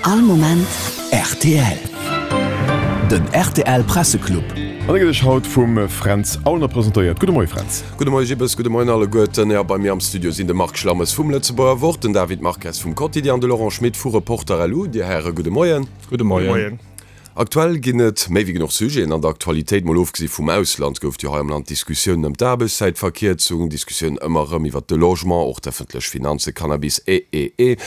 All Moment rtl. Den rtl Presseclub. An e gëtt iech haut vum Fränz Aulner presentéiert. Gudde Moie Fränz. Gudde Moie Gibbes, gudde Moien alleguerten. Jo, bei mir am Studio sinn de Marc Schlammes vum Lëtzebuerger Wort, den David Marques vum Quotidien an de Laurent Schmit vu Reporter LU. Dir Häre, gudde Moien. Gudde Moien. Aktuell ginn et méi wéi genuch Sujeten an der Aktualitéit. Mol ofgesi vum Ausland gouf et jo hei am Land Diskussiounen ëm d'Aarbechtszäitverkierzung, Diskussiounen ëmmer erëm iwwert de Logement, och d'ëffentlech Finanzen, Cannabis, e. E. E.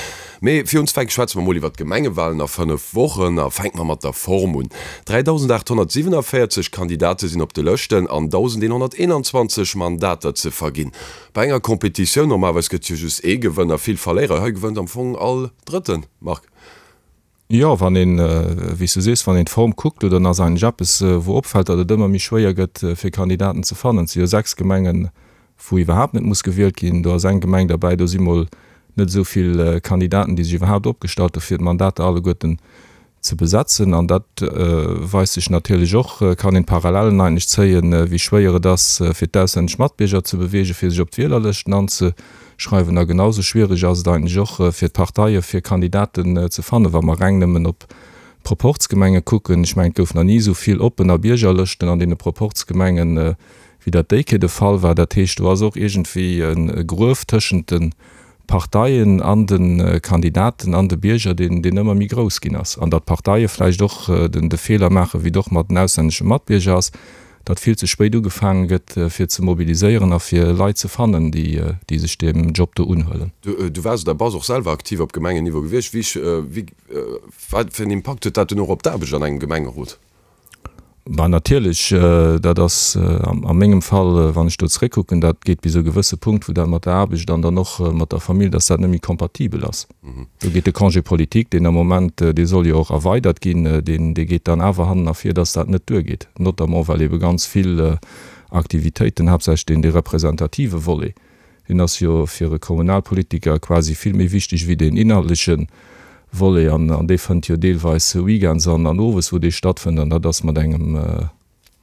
Mee fir unzefänke schwätze mer mol iwwert d'Gemengewalen a 5 Wochen a fänke mer mat der Form un. 3.847 Kandidate sinn op de Lëschten an 1.121 Mandater ze verginn. Bei enger Competitioun, normalerweis gëtt jo just ee Gewënner, vill Verléierer, hei gewënnt am Fong all Drëtten, Marc. Jo, wann een, wéi s du sees, wann een d'Form kuckt, dann ass eigentlech eppes, wou opfält, datt et ëmmer méi schwéier gëtt, fir Kandidaten ze fannen. Et si jo 6 Gemengen, wou iwwerhaapt net muss gewielt ginn. Do ass eng Gemeng derbäi, do si mol net esou vill Kandidaten, déi sech iwwerhaapt opgestallt hu fir d'Mandater alleguerten ze besetzen. An dat weist sech natierlech och, kann een d'Parallellen eigentlech zéien, wéi schwéier et ass, fir d'auslännesch Matbierger ze beweegen, fir sech op d'Wielerlëschten anze. Schreiwen. A genau sou schwiereg ass et eigentlech och fir d'Parteie fir Kandidaten ze fannen, wa mer reng nëmmen op d'Proporzgemenge kucken. Ech mengen, et gouf nach ni esou vill Oppen a Biergerlëschten an deene Proporzgemengen, wéi dat déi Kéier de Fall war. Dat heescht, do ass och iergendwéi e Gruef tëschent de Parteien an de Kandidaten an de Bierger, deen ëmmer méi grouss ginn ass. An datt d'Parteie vläicht och de Feeler maachen, wéi et och mat den auslännesche Matbierger ass, datt vill ze spéit ugefaange gëtt fir ze mobiliséieren a fir Leit ze fannen, déi sech deem Job do unhuelen. Du waars oder bass och selwer aktiv op Gemengenniveau gewiescht. Wéi, wat fir en Impakt huet dat dunn och op d'Aarbecht an engem Gemengerot? Bah natierlech, dat ass a mengem Fall, wann ech do zeréckkucken, dat geet bis e gewësse Punkt, wou dat mat der Aarbecht an dann och mat der Famill, datt dat net méi kompatibel ass. Do geet de Congé politique, deen am Moment, dee soll jo och erweidert ginn, deen, dee geet dann awer hannen ervir, dass dat net duergeet, notamment well ebe ganz vill Aktivitéiten, haaptsächlech deen, dee representative Volet, deen ass jo fir e Kommunalpolitiker quasi vill méi wichteg wéi deen inhaltleche Volet an, an dee fënnt jo deelweis weekends an, an owes, wou dee stattfënnt an dat ass mat engem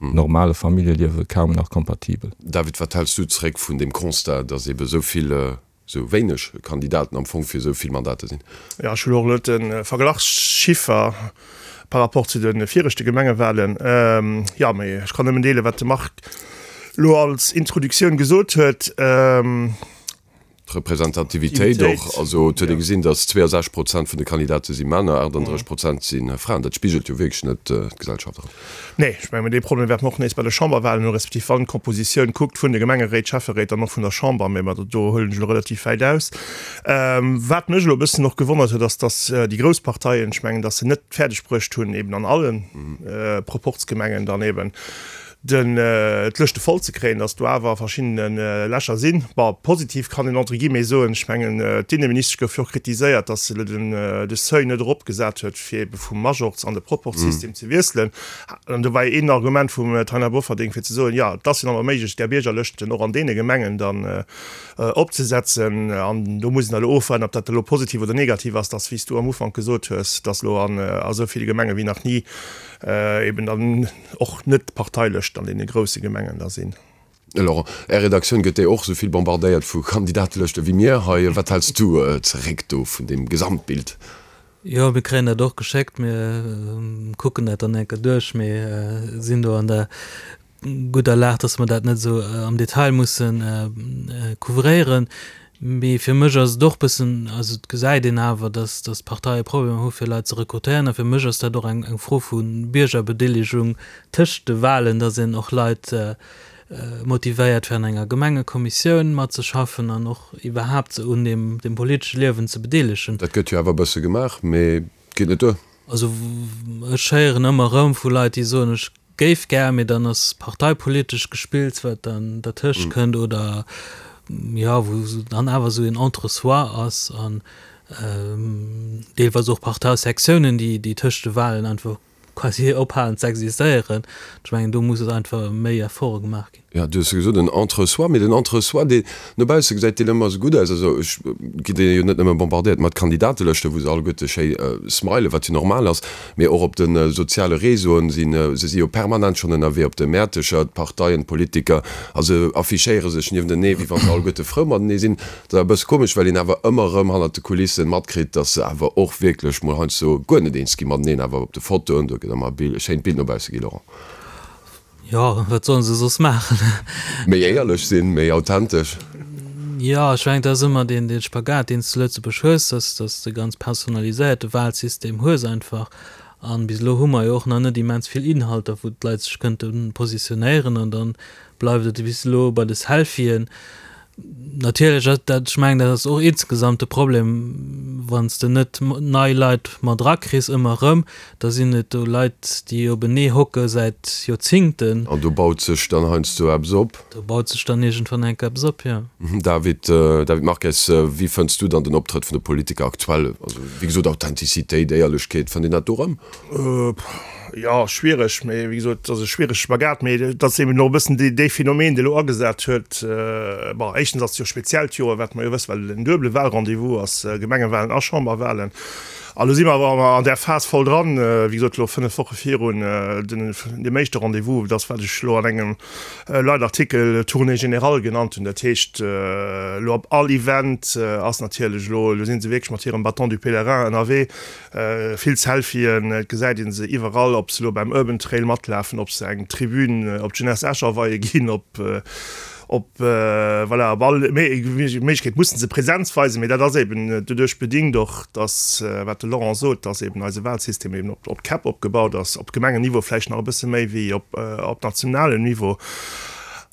normale Familljeliewe kaum nach kompatibel. David, wat häls du zeréck vun deem Constat, dass ebe esou vill sou wéineg Kandidaten am Fong fir esou vill Mandater sinn. Jo, ech hunn och elo de Verglachschiffer par rapport zu de viregte Gemengewahlen. Jo, mee ech kann nëmmen deelen, wat de Marc elo als Introduktioun gesot huet. D'Representativitéit och, also et huet ee gesinn, datt 62 Prozent vun de Kandidate si Männer, 38 Prozent si Fraen. Dat spigelt jo wierklech net d'Gesellschaft erëm. Nee, ech mengen, dee Problem wäerte mer och nees bei de Chamberwahlen hunn, respektiv wann d'Kompositioun kuckt vun de Gemengeréit, Schäfferéit an och vun der Chamber, mä do huelen ech elo relativ wäit aus. Wat mech elo e bëssen och gewonnert huet, ass, datt déi grouss Parteien, ech mengen, datt se net fäerdeg bruecht hunn, eben an alle Proporzgemengen dann eben den d'Lëschte voll ze kréien, datt do awer verschiddene Lächer sinn. Bon, positiv kann een entre guillemets soen, ech mengen, d'Inneministesch gouf jo och kritiséiert, datt se elo den de Seuil net eropgesat huet, fir ebe vum Majorz an de Proporzsystem ze wiesselen. An do war jo een Argument vum Taina Bofferding, fir ze soen, jo, et ass jo nach méiglech, där Biergerlëschten och an deene Gemengen dann opzesetzen. An do muss een da elo ofwaarden, ob dat elo positiv oder negativ ass, datt, wéi s du am Ufank gesot hues, datt elo an esou ville Gemenge wéi nach ni eben dann och net d'Parteilëschten an deene grousse Gemengen da sinn. Laurent, Är Redaktioun gëtt déi och esou vill bombardéiert vu Kandidatelëschte wéi mir hei. Wat häls du zeréck do vun deem Gesamtbild? Jo, mir kréien dat och geschéckt. Mir kucken dat dann eng Kéier duerch. Mir sinn do an der gudder Lag, dass mer dat net esou am Detail musse couvréieren. Mee fir mech ass et och bëssen, also et gesäit een awer, dass dass d'Parteie Problemer hu fir Leit ze rekrutéieren. A fir mech ass dat och eng eng Fro vu Biergerbedeelegung tëscht de Wahlen, dass een och Leit motivéiert fir an enger Gemengekommissioun matzeschaffen an och iwwerhaapt se un deem dem politesche Liewen ze bedeelegen. Dat gëtt jo awer e bësse gemaach, mee et geet net duer. Also ech héieren ëmmer erëm vu Leit, déi soen, ech Géif gär, mee dann ass parteipolitesch Gespills, wat dann dertëscht kënnt oder jo, wou dann awer esou een Entre-soi ass an deelweis och Parteisektiounen, déi, déi tëscht de Wahlen einfach quasi ophalen ze existéieren. Ech mengen, do muss et einfach méi Efforte gemaach ginn. Jo, du hues jo gesot, en Entre-soi, mee den Entre-soi, deen no bausse gesäit deen ëmmer esou gutt aus. Also ech gi jo net nëmme bombardéiert mat Kandidatelëschten, wou se alleguerte schéi smilen, wat jo normal ass, mee och op de soziale Réseauen sinn se si jo permanent schonn ënnerwee op de Mäertecher, d'Parteien, d'Politiker, a se affichéiere sech nieftenee, wéi wa se alleguerte frou matenee sinn. Dat ass e bësse komesch, well een awer ëmmer erëm hannert de Kulissen matkritt, datt se awer och wierklech mol heiansdo guer net eens gi mateneen, awer op de Fotoen, do gëtt ëmmer e schéint Bild no bausse gi, Laurent. Jo, wat sollen se soss maachen? Méi éierlech sinn, méi authentesch. Jo, ech mengen, dat ass ëmmer deen, deen Spagat, deen s de zu Lëtzebuerg hues, dass, dass de ganz personaliséierte Wahlsystem hues einfach. An bis elo hu mer jo och nach net immens vill Inhalter, wou d'Leit sech kënnte positionéieren. An da bleift et bis elo bei de Selfien. Natierlech ass dat, ech mengen, dat ass och insgesamt de Problem, wann s de net nei Leit mat erakriss ëmmer erëm, da sinn et do Leit, déi openee hocke säit Joerzingten. An do baut sech dann heiansdo eppes op. Do baut sech dann iergendwann eng Kéier eppes op, jo. David, David Marques, wéi fënns du dann den Optrëtt vun de Politiker aktuell? Also, wéi gesot, Authentizitéit, Éierlechkeet, fënnt een dat do erëm? Jo, schwiereg, mee wéi gesot, et ass e schwierege Spagat, mee et ass eben och e bëssen dee Phänomen, dee elo agesat huet. Bon, éischtens ass et jo e speziellt Joer, wat mer jo wëssen, well et en duebele Wahlrendez-vous ass, Gemengewahlen a Chamberwahlen. A lo si mer awer an där Phas voll dran, wéi gesot, elo 5 Woche virun deem éischte Rendez-vous, dat ass, wat ech elo an engem Leitartikel Tournée générale genannt hunn. Dat heescht, elo op all Event ass natierlech elo, elo si se wierklech mat hirem Bâton du pèlerin ënnerwee, Vill Selfien, et gesäit een se iwwerall, ob se elo beim Urban Trail matlafen, ob se eng Tribün op d'Jeunesse Esch aweie ginn, ob op voilà op all Méiglechkeet mussen se Präsenz weisen. Mee dat ass eben doduerch bedingt och, dass, wat de Laurent sot, dass eben eise Wahlsystem eben op op d'Käpp opgebaut ass, op Gemengenniveau vläicht nach e bësse méi wéi op op nationalem Niveau.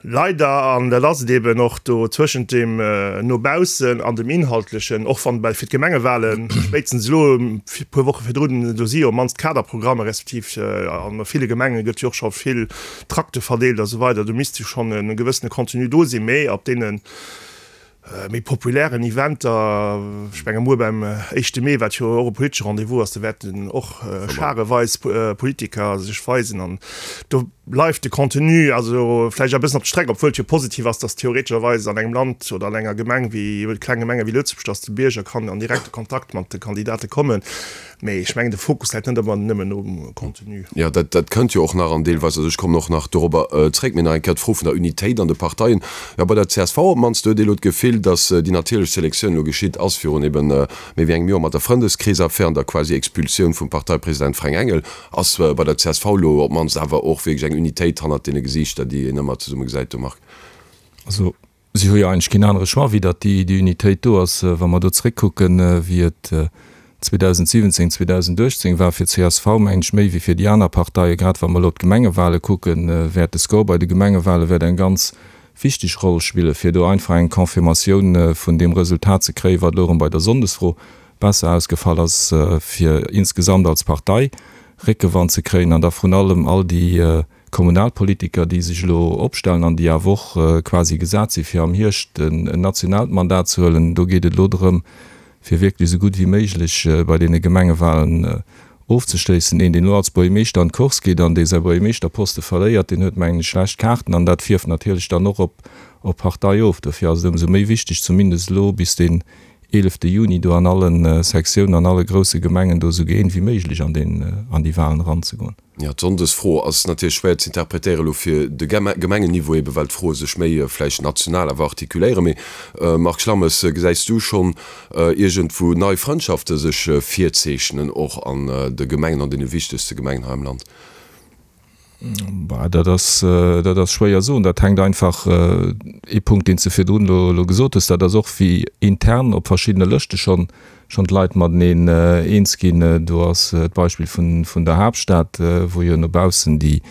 Leider, an dat ass et eben och do zwëschent deem no baussen an dem Inhaltlechen, och wann fir d'Gemengewahlen spéitstens elo e puer Woche virdrun, do si jo op mannst d'Kaderprogrammer, respektiv a ville Gemenge gëtt jo och scho vill Trakte verdeelt a sou weider, do misst jo schonn e gewëssene Contenu do sinn, mee op deene méi populären Eventer, ech menge muer beim éischte Mee, wat jo och e politesche Rendez-vous ass, do wäerten och schareweis Politiker sech weisen an do bleift de Contenu also vläicht e bëssen op der Streck, obwuel et jo positiv ass, datt theoretescherweis an engem Land oder an enger Gemeng wéi, kleng Gemenge wéi Lëtzebuerg, datt de Bierger kann an direkte Kontakt mat de Kandidate kommen. Mee ech mengen, de Fokus läit net ëmmer nëmmen um Contenu. Jo, dat, dat kënnt jo och nach an deelweis, also ech kommen och nach dorobber zréck. Mee nach eng Kéier d'Fro vun der Unitéit an de Parteien. Jo, bei der csv op d'mannst huet ee elo d'Gefill, datt déi natierlech Selektioun elo geschitt ass virun ebe méi wéi engem Joer mat der Frëndeskreesaffär an der quasi Expulsioun vum Parteipresident Fränk Engel. Ass bei der csv elo op d'mannst awer och wierklech eng Unitéit hannert deene Gesiichter, déi een ëmmer zesumme gesäit do, Marc? Also Si hu jo eigentlech keen anere Choix, wéi datt déi Unitéit do ass. Wa mer do zréckkucken, wéi et 2017, 2018 war fir csv, mengen ech, méi wéi fir déi aner Parteien, grad wa mer elo d'Gemengewale kucken, wäert de Score bei de Gemengewale wäert eng ganz wichteg Roll spillen, fir do einfach eng Confirmatioun vun deem Resultat ze kréien, wat elo erëm bei der Sonndesfro besser ausgefall ass, fir insgesamt als Partei Réckewand ze kréien an da vrun allem all déi Kommunalpolitiker, déi sech elo opstellen an déi awer och quasi gesat si fir am Hierscht en nationaalt Mandat ze huelen, do geet et elo drëm, fir wierklech esou gutt wéi méiglech bei deene Gemengewahlen ofzeschléissen. Een, deen elo als Buergermeeschter an d'Course geet an dee säi Buergermeeschterposte verléiert, deen huet, mengen ech, schlecht Kaarten an dat fierft natierlech dann och op d'Partei of. Dofir ass et ëmsou méi wichteg, zumindest elo bis deen eelefte Juni do an alle Sektiounen, an alle grousse Gemengen do esou gëeent wéi méiglech an déi Wahlen eranzegoen. Jo, d'Sonndesfro ass natierlech schwéier ze interpretéieren elo fir de Gemengenniveau, ebe well d'Froe sech méi vläicht national awer artikuléieren. Mee Marc Schlammes, gesäis du schonn iergendwou nei Frëndschafte sech virzeechnen, och an de Gemengen, an deene wichtegste Gemengen hei am Land? Bah, dat ass, dat ass schwéier soen. Dat hänkt einfach, ee Punkt, deen s de virdrun elo, elo gesot hues, dat ass och wéi intern op verschiddene Lëschte schonn, schonn d'Leit mateneen eens ginn. Do ass d'Beispill vun, vun der Haaptstad, wou jo no baussen déi,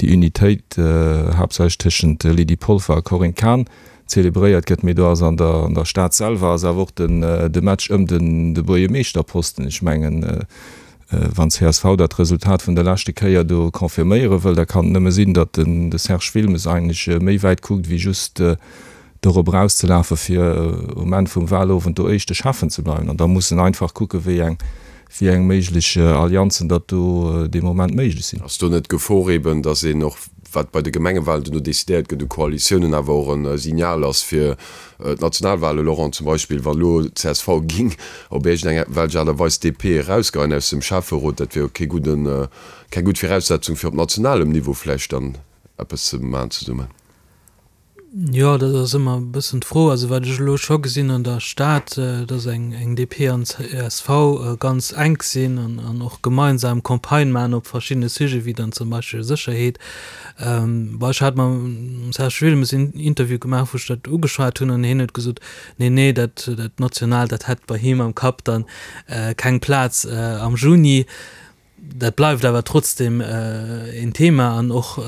déi Unitéit haaptsächlech tëschent Lydie Polfer a Corinne Cahen zelebréiert gëtt. Mee do ass an der, an der Stad selwer ass awer och den, de Match ëm den, de Buergermeeschterposten. Ech mengen, Wann csv dat Resultat vun der leschte Kéier do confirméiere wëll, da kann et nëmme sinn, datt den de Serge Wilmes eigentlech méi wäit kuckt wéi just dorop erauszelafen, fir um Enn vum Wahlowend do éischte Schäffen ze bleiwen. An da muss en einfach kucken, wéi eng. Wéi eng méiglech Allianzen datt do dee Moment méiglech sinn. Ass do net d'Gefor eben, datt een och, wat bei de Gemengewahlen duerno decidéiert gëtt u Koalitiounen, awer och e Signal ass fir d'Nationalwahlen, Laurent, zum Beispill wa lo csv ging op iergend eng welch Aart a Weis d'DP erausgeheien aus dem Schäfferot, dat wier jo kee gudden, keng gutt Viraussetzung fir op nationalem Niveau vläicht dann eppes ze maachen zesummen? Jo, dat ass ëmmer e bëssen d'Fro. Also wat ech elo scho gesinn an der Stad, datt eng DP an csv ganz enk sinn an och gemeinsam Campagne maachen op verschiddene Sujete wéi dann zum Beispill Sécherheet. Bon, ech hat mam Serge Wilmes en Interview gemaach, wou ech dat ugeschwat hunn an hien huet gesot, nee, nee, dat Nationaalt, dat hätt bei him am Kapp dann keng Plaz am Juni. Dat bleift awer trotzdem een Thema an och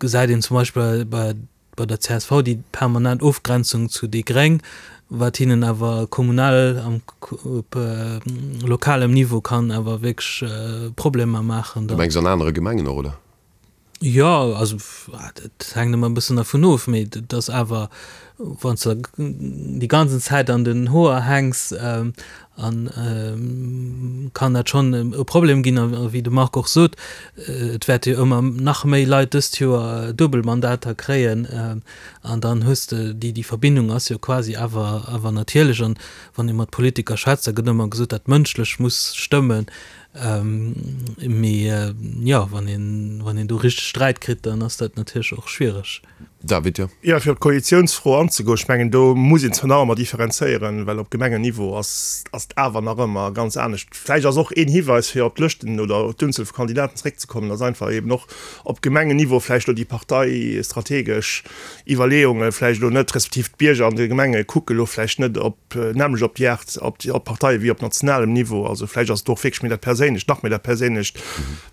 gesäit een zum Beispill bei bei der csv déi permanent Ofgrenzung zu déi Gréng, wat hinnen awer kommunal am op lokalem Niveau kann awer wierklech Problemer maachen. Du mengs an anere Gemengen och, oder? Jo, also dat hänkt ëmmer e bëssen dervun of, mee et ass awer, wann s de déi ganzen Zäit an den Hoer hänks, an kann dat schonn e Problem ginn. A wéi de Marc och sot, et wäerte jo ëmmer nach méi Leit dëst Joer Duebelmandater kréien an dann hues de déi, déi Verbindung ass jo quasi awer awer natierlech. An wann ee mat Politiker schwätzt, da gëtt ëmmer gesot, dat Mënschlech muss stëmmen. Mee jo, wann een, wann een do richteg Sträit kritt, dann ass dat natierlech och schwiereg. David, jo. Jo, fir op d'Koalitiounsfro anzegoen, ech mengen, do muss een zwar nach ëmmer differenzéieren, well op Gemengenniveau ass ass et awer nach ëmmer ganz anescht. Vläicht ass och een Hiweis, fir op d'Lëschten oder op d'Unzuel vu Kandidaten zeréckzekommen, dass einfach eben och op Gemengenniveau vläicht elo déi parteistrategesch Iwwerleeunge vläicht elo net, respektiv d'Bierger an de Gemenge kucke elo vläicht net op nämmlecht op déi Aart, op déi, op d'Parteie wéi op nationalem Niveau. Also vläicht ass et och wierklech méi dat Perséinlecht, nach méi dat Perséinlecht,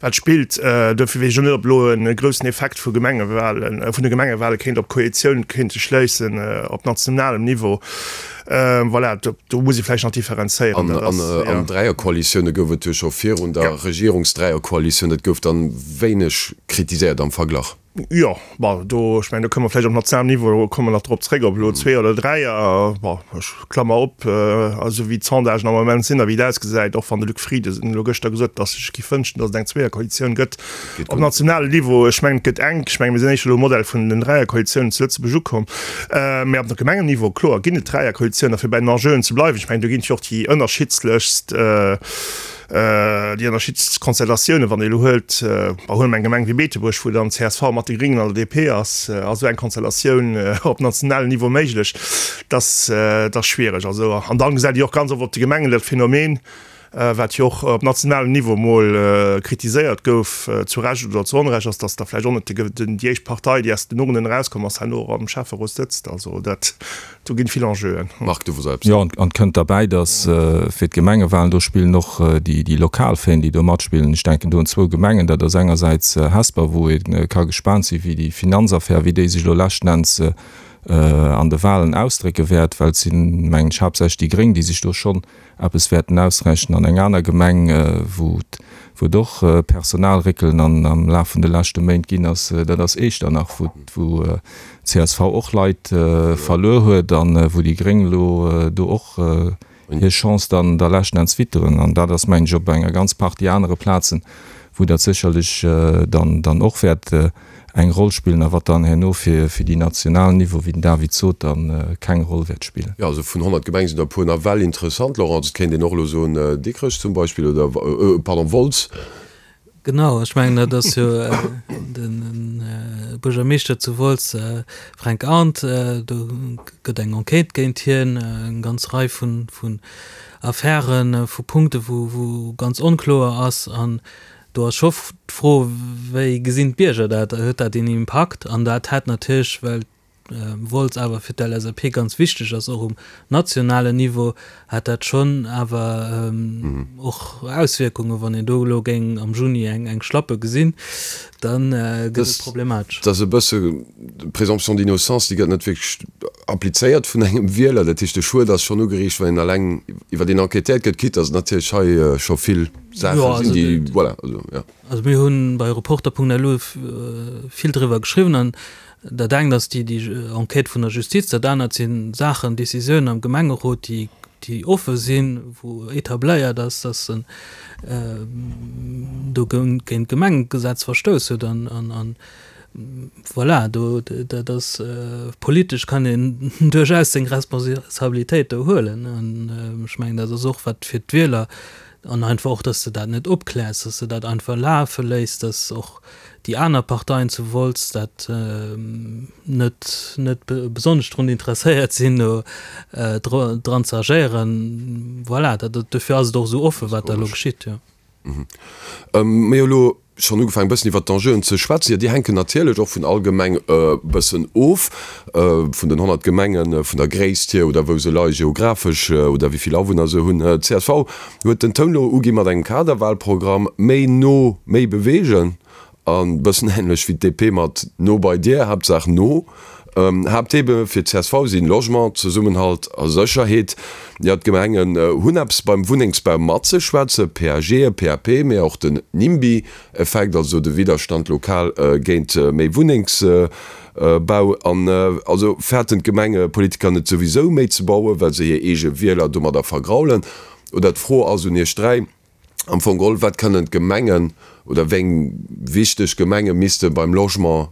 wat spillt. Dofir weess ech och net, ob elo e groussen Effekt vu Gemengewahlen, vun de Gemengewahlen kéint op d'Koalitioun kéinte schléissen op nationalem Niveau. Voilà, do, do muss ee vläicht nach differenzéieren. An, an, an Dräierkoalitioune gouf et jo scho virun der Regierungsdräierkoalitioun. Dat gouf dann wéineg kritiséiert am Verglach. Jo, bon, do, ech mengen, do kënne mer vläicht op nationalem Niveau, komme mer nach drop zréck, ob elo Zweeër oder Dräier, bon, ech klammer op, esou wéi d'Sondagen am Moment sinn a wéi et ausgesäit, och wann de Luc Frieden elo gëschter gesot huet, datt e sech géif wënschen, datt et eng Zweeërkoalitioun gëtt op nationalem Niveau. Ech mengen, et gëtt enk. Ech mengen, mir sinn éischter elo um Modell vun den Dräierkoalitiounen zu Lëtzebuerg ukomm. Mä op Gemengenniveau, kloer, ginn et Dräierkoalitiounen. A fir bei den Enjeuen ze bleiwen, ech mengen, do ginn et jo och déi ënnerschiddlechst, Déi ënnerschiddlechst Konstellatiounen, wann ee elo huelt, bon, huele mer eng Gemeng wéi Beetebuerg, wou dann csv mat de Gréngen an der DP ass, ass esou eng Konstellatioun op nationalem Niveau méiglech? Dat ass schwiereg. Also, an dann gesäit ee och ganz oft op de Gemengen dat Phänomen, wat jo och op nationalem Niveau emol kritiséiert gouf, zu Recht oder zu Onrecht, ass, datt da vläicht och net déi éischt Partei, déi aus den Urnen erauskomm ass, herno och am Schäfferot sëtzt. Also dat. Do ginn vill Enjeuen. Marc, du wosst eppes. Jo, an et kënnt derbäi, datt fir d'Gemengewahlen, do spillen och déi lokal Féin, déi do matspillen. Ech denken do un zwou Gemengen, dat ass engersäits Hesper, wou ee ka gespaant sinn, wéi déi Finanzaffär, wéi déi sech elo leschten Enns an de Wahlen ausdrécke wäert, well et sinn, mengen ech, haaptsächlech déi Gréng, déi sech do schonn eppes wäerten ausrechnen. An eng aner Gemeng, wou et och Personalréckelen am Laf vun de leschte Méint ginn ass, dat ass Echternach, wou csv och Leit verluer huet a wou déi Gréng elo do och hir Chance dann da leschten Enns witteren. An dat ass, mengen ech, op enger ganz Partie anere Plazen, wou dat sécherlech dann och wäert eng Roll spillen a wat dann herno fir fir déi nationalen Niveau, wéi den David sot, dann keng Roll wäert spillen. Jo, also vun 100 Gemenge sinn der e puer nawell interessant, Laurent. Et kéint een och elo soen Dikrech zum Beispill oder, pardon, Wolz. Genau, ech mengen dat ass jo de Buergermeeschter zu Wolz, Fränk Arndt, do gëtt eng Enquête géint hien, eng ganz Rei vun Affären, vu Punkte wou ganz onkloer ass an Do ass scho d'Fro, wéi gesinn d'Bierger dat? Huet dat een Impakt? An dat hätt natierlech, well Wolz awer fir d'LSAP ganz wichteg ass, och um nationalen Niveau, hätt dat schonn awer och Auswierkungen. Wann een do elo géing am Juni eng Schlappe gesinn, da gëtt et problematesch. Dat ass e bësse d'Présomption d'innocence, déi gëtt net wierklech applizéiert vun engem Wieler. Dat heescht, de Schued ass schonn ugeriicht, wann een eleng iwwer een enquêtéiert gëtt, quitte datt et natierlech hei scho vill Saache sinn, déi, voilà, also, jo. Also mir hu bei Reporter.lu vill driwwer geschriwwen an dat engt ass déi Enquête vun der Justiz, dat anert si Saachen, Décisiounen am Gemengerot, déi. déi offe sinn, wou etabléiert ass, dass en do géint d'Gemengegesetz verstouss huet an voilà, do dat ass politesch kann een duerchaus seng Responsabilitéit do huelen an ech mengen dat ass och wat fir d'Wieler an einfach och, dass de dat net opkläers, dass de dat einfach lafe léiss, dass och déi aner Parteien zu Wolz dat net net besonnesch drun interesséiert sinn, do dran ze agéieren. Voilà, dat dofir ass et och esou offen, wat da elo geschitt, jo. Mir hu elo schonn ugefaangen, e bëssen iwwert d'Enjeuen ze schwätzen. Jo, déi hänken natierlech och vun all Gemeng e bëssen of, vun den 100 Gemengen, vun der Gréisst hier oder wou se leie geographesch oder wéi vill Awunner se hunn. Csv huet den Toun elo ugi mat engem Kaderwahlprogramm, méi no, méi beweegen. A bëssen änlech wéi d'DP mat no bei dir, Haaptsaach no. Haapttheme fir d'CSV sinn Logement, Zesummenhalt a Sécherheet. Jo, d'Gemengen hunn eppes beim Wunnengsbau matzeschwätzen, PAGe, PAP, mee och den NIMBY-Effekt, also de Widderstand lokal géint méi Wunnengsbau. An also fäerten d'Gemengepolitiker net souwisou méi ze bauen, well se hir eege Wieler domadder vergraulen? Oder d'Fro ass un iech 3, Am Fong geholl, wat kënnen d'Gemengen oder wéi eng wichteg Gemenge misste beim Logement,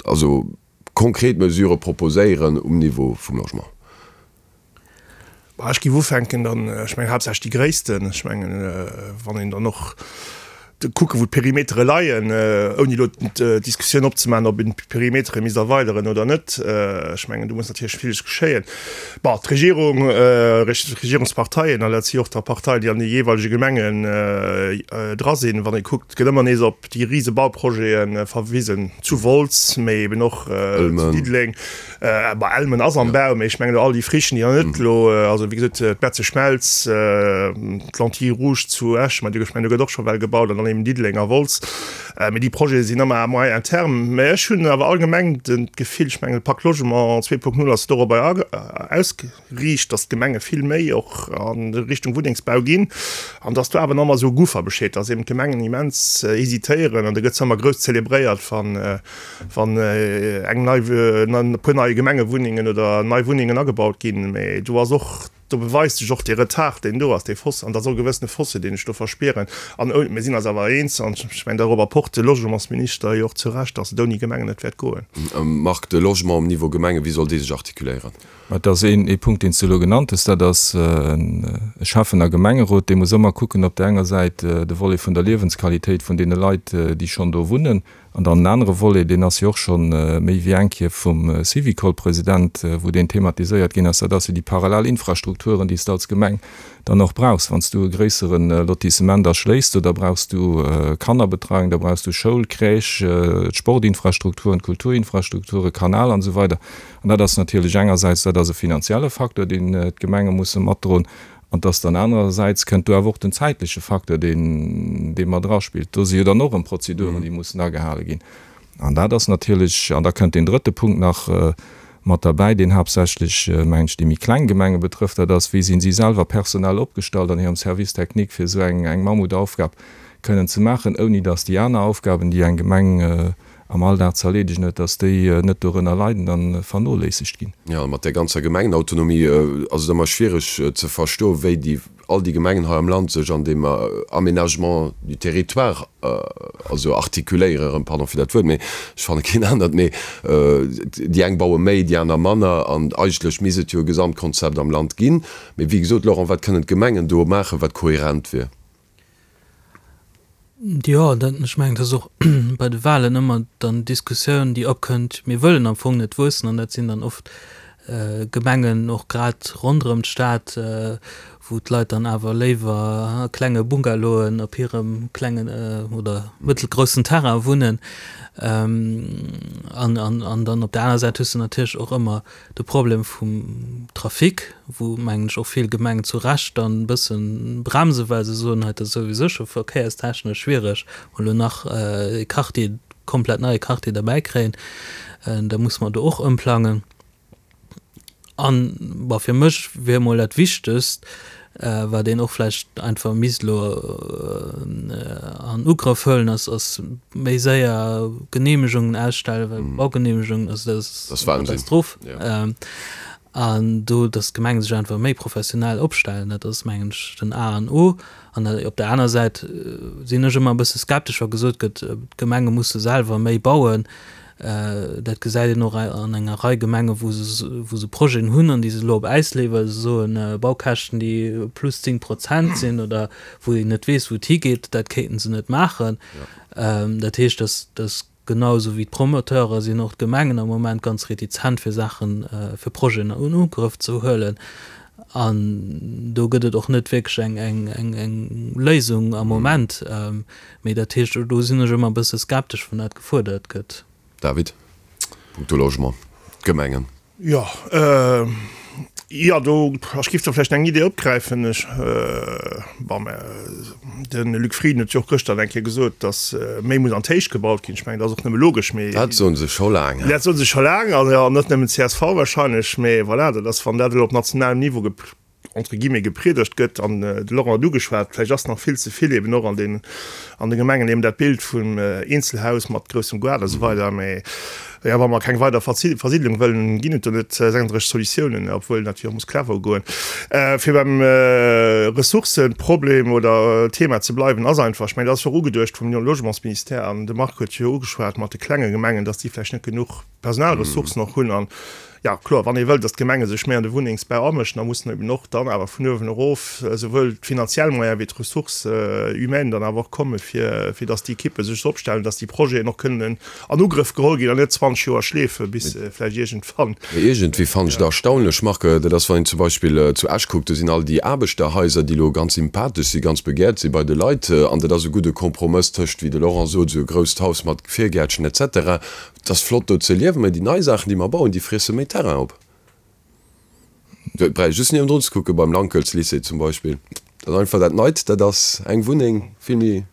also konkret Mesurë proposéieren um Niveau vum Logement? Ech géif ufänken dann, ech mengen haaptsächlech déi gréissten. Ech mengen, wann een dann och kucken, wou d'Perimetere leien, ouni elo d'Diskussioun opzemaachen, ob een d'Perimetere misst erweideren oder net. Ech mengen, do muss natierlech villes geschéien. Bon, d'Regierung, d'Regierungsparteien, an dat si och da Parteien, déi an de jeeweilege Gemengen dra sinn, wann ee kuckt, gëtt ëmmer nees op déi rise Bauprojete verwisen, zu Wolz, mee eben och zu Diddeleng. Bon, Elmen ass am Bau, mee ech mengen elo all déi Frichen, déi nach net elo, also wéi gesot, d'Metzeschmelz, d'Lentille rouge zu Esch, mä ech mengen, do gëtt och scho well gebaut, an dann eben Diddeleng a Wolz. Mee déi Projete sinn ëmmer à moyen terme. Mä ech hunn awer allgemeng d'Gefill, ech mengen de Pacte Logement 2.0 ass dorobber ausgeriicht, datt d'Gemenge vill méi och a Richtung Wunnengsbau ginn an datt do awer nach ëmmer esou e Guffer besteet, datt eben d'Gemengen immens hesitéieren an da gëtt zwar ëmmer grouss zelebréiert, wann wann eng nei, e puer nei Gemengewunnengen oder nei Wunnengen agebaut ginn. Mä do ass och Do beweist sech och dee Retard, deen do ass, dee Fosse, an dat ass och e gewëssene Fossé, deen ech do verspieren. An mir sinn eis awer eens, an ech mengen, dorobber pocht de Logementsminister jo och zu Recht, dass et ouni Gemengen net wäert goen. Marc, de Logement um Niveau Gemenge, wéi soll dee sech artikuléieren? Et ass een ee Punkt, deen s du elo genannt hues, dat ass e Schäffen a Gemengerot, dee muss ëmmer kucken, op där enger Säit de Volet vun der Liewensqualitéit vun deene Leit, déi schonn do wunnen, An dann en anere Volet, deen ass jo och scho méi wéi eng Kéier vum Syvicol-President, wou deen thematiséiert ginn ass, dat ass jo déi parallel Infrastrukturen, déi s de als Gemeng dann och brauchs. Wann s du e gréissere Lotissement erschléisst, do da brauchs du Kannerbetreiung, da brauchs du Schoul, Crèche, d'Sportinfrastrukturen, d'Kulturinfrastrukturen, Kanal an esou weider. An dat ass natierlech engersäits, dat ass e finanzielle Facteur, deen d'Gemenge musse matdroen, An dass dann anerersäits kënnt do awer och den zäitleche Facteur, deen, dee mat eraspillt. Do si jo dann och erëm Prozeduren, déi mussen agehale ginn. An dat ass natierlech, an da kënnt deen drëtte Punkt nach mat derbäi, deen haaptsächlech, mengen ech, déi méi kleng Gemenge betrëfft, dat ass, Wéi sinn si selwer personell opgestallt an hirem Service technique, fir esou eng, eng Mammutaufgab kënnen ze maachen, ouni dass déi aner Aufgaben, déi eng Gemeng am Alldag ze erleedegen huet, dass déi net dorënner leiden a vernoléissegt ginn. Jo, mat där ganzer Gemengenautonomie ass et ëmmer schwiereg ze verstoen, wéi déi, all déi Gemengen hei am Land sech an deem Aménagement du territoire also artikuléieren, erëm pardon fir dat Wuert, mee ech fanne keen anert, mee déi eng baue méi, déi aner manner an eigentlech misst et jo e Gesamtkonzept am Land ginn. Mee wéi gesot, Laurent, wat kënnen d'Gemengen do maachen, wat kohärent wier? Jo, dat, ech mengen, dat ass och bei de Wahlen ëmmer dann d'Diskussioun, déi opkënnt, mir wëllen am Fong net wuessen an dat sinn dann oft Gemengen, och grad ronderëm d'Stad, wou d'Leit dann awer léiwer a klenge Bungalowen op hirem klengen oder mëttelgroussen Terrain wunnen. An, an, an dann op der aner Säit hues de natierlech och ëmmer De Problem vum Trafic, wou, mengen ech, och vill Gemengen zu Recht dann e bësse bremsen, well se soen, hei, dat ass souwisou scho verkéierstechnesch schwiereg, wa lo nach e Quartier, komplett neie Quartier derbäi kréien, da muss mer do och ëmplangen. An, bon, fir mech wier emol dat Wichtegst, wat een och vläicht einfach misst elo an Ugrëff huelen, ass, ass méi séier Genehmegungen ausstellen, well Baugenehmegungen, also dat ass eng Katastroph. An do, datt d'Gemenge sech einfach méi professionell opstellen, dat ass, mengen ech, den A an O. An op der aner Säit sinn ech ëmmer e bësse skeptesch, wa gesot gëtt, d'Gemenge musse selwer méi bauen. Dat gesäit een och an enger Rei Gemengen, wou se, wou se Projeten hunn an déi se elo op Äis leeën, well se soen, Baukäschten, déi plus 10 Prozent sinn oder wou een net weess, wou et higeet, dat kéinten se net maachen. Dat heescht, datt, datt Genau esou wéi d'Promoteure sinn och d'Gemengen am Moment ganz retizent fir Saachen, fir Projeten an Ugrëff ze huelen. An do gëtt et och net wierklech eng, eng, eng, eng Léisung am Moment. Mee dat heescht, do sinn ech ëmmer e bësse skeptesch, wann dat gefuerdert gëtt. David, punkto Logement, d'Gemengen. Jo, jo, do, ech giff do vläicht eng Idee opgräifen. Ech, bon, mä de Luc Frieden huet jo och gëschter eng Kéier gesot, datt méi muss an d'Héicht gebaut ginn. Ech mengen, dat ass och nëmme logesch, mee. Dat soen se scho laang. Dat soe se scho laang, an jo, net nëmmen csv wahrscheinlech, mee voilà, dat ass, wann dat elo op nationalem Niveau entre guillemets gepriedegt gëtt, an de Laurent huet ugeschwat, vläicht ass nach vill ze vill eben och an den an de Gemengen eben dat Bild vum Eenzelhaus mat groussem Gaart a sou weider, mä jo, wa mer keng weider Versiedlung wëllen, ginn et do net 36 Solutiounen, obwuel natierlech och muss clever ugoen. Fir beim Ressourcëproblem oder Thema ze bleiwen, ass einfach, ech mengen, dat ass jo och ugeduecht vum Logementsministère, an de Marc huet jo ugeschwat mat de klenge Gemengen, dass déi vläicht net genuch Personalressourcen och hunn an Jo, kloer, wann ee wëllt, datt d'Gemenge sech méi an de Wunnengsbau amëschen, da mussen eben och dann awer vun uewen erof esouwuel d'finanziell Moyene wéi d'Ressources humaines dann awer och komme fir, fir datt déi Ekippe sech esou opstellen, datt déi Projeten och kënnen an Ugrëff geholl ginn an net 20 Joer schleefe bis se vläicht iergendwann. Mee iergendwéi fannen ech et erstaunlech, Marc, dat ass, wann een zum Beispill zu Esch kuckt, do sinn all déi Aarbechterhaiser, déi elo ganz sympathesch sinn, ganz begehrt si bei de Leit, an dat ass e gudde Kompromëss tëscht, wéi de Laurent sot, esou e grousst Haus mat Virgäertchen et cetera, Et ass flott do ze liewen, mä déi nei Saachen, déi mer bauen, déi friesse méi Terrain op. Et bräicht just niewendrun ze kucken, beim Lankelz-Lycée zum Beispill. Dat ass einfach dat Neit, dat ass eng Wunneng vill méi,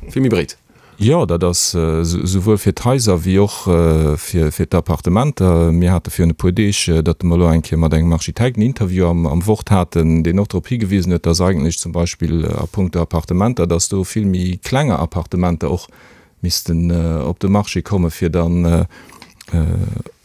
vill méi breet. Jo, dat ass esouwuel fir d'Haiser wéi och fir d'Appartementer. Mir hate virun e puer Deeg, datt mer elo eng Kéier mat engem Architekt en Interview am Wort haten, deen och drop higewisen huet, datt eigentlech zum Beispill a puncto Appartementer, datt do vill méi klenger Appartementer och missten op de Marché komme fir dann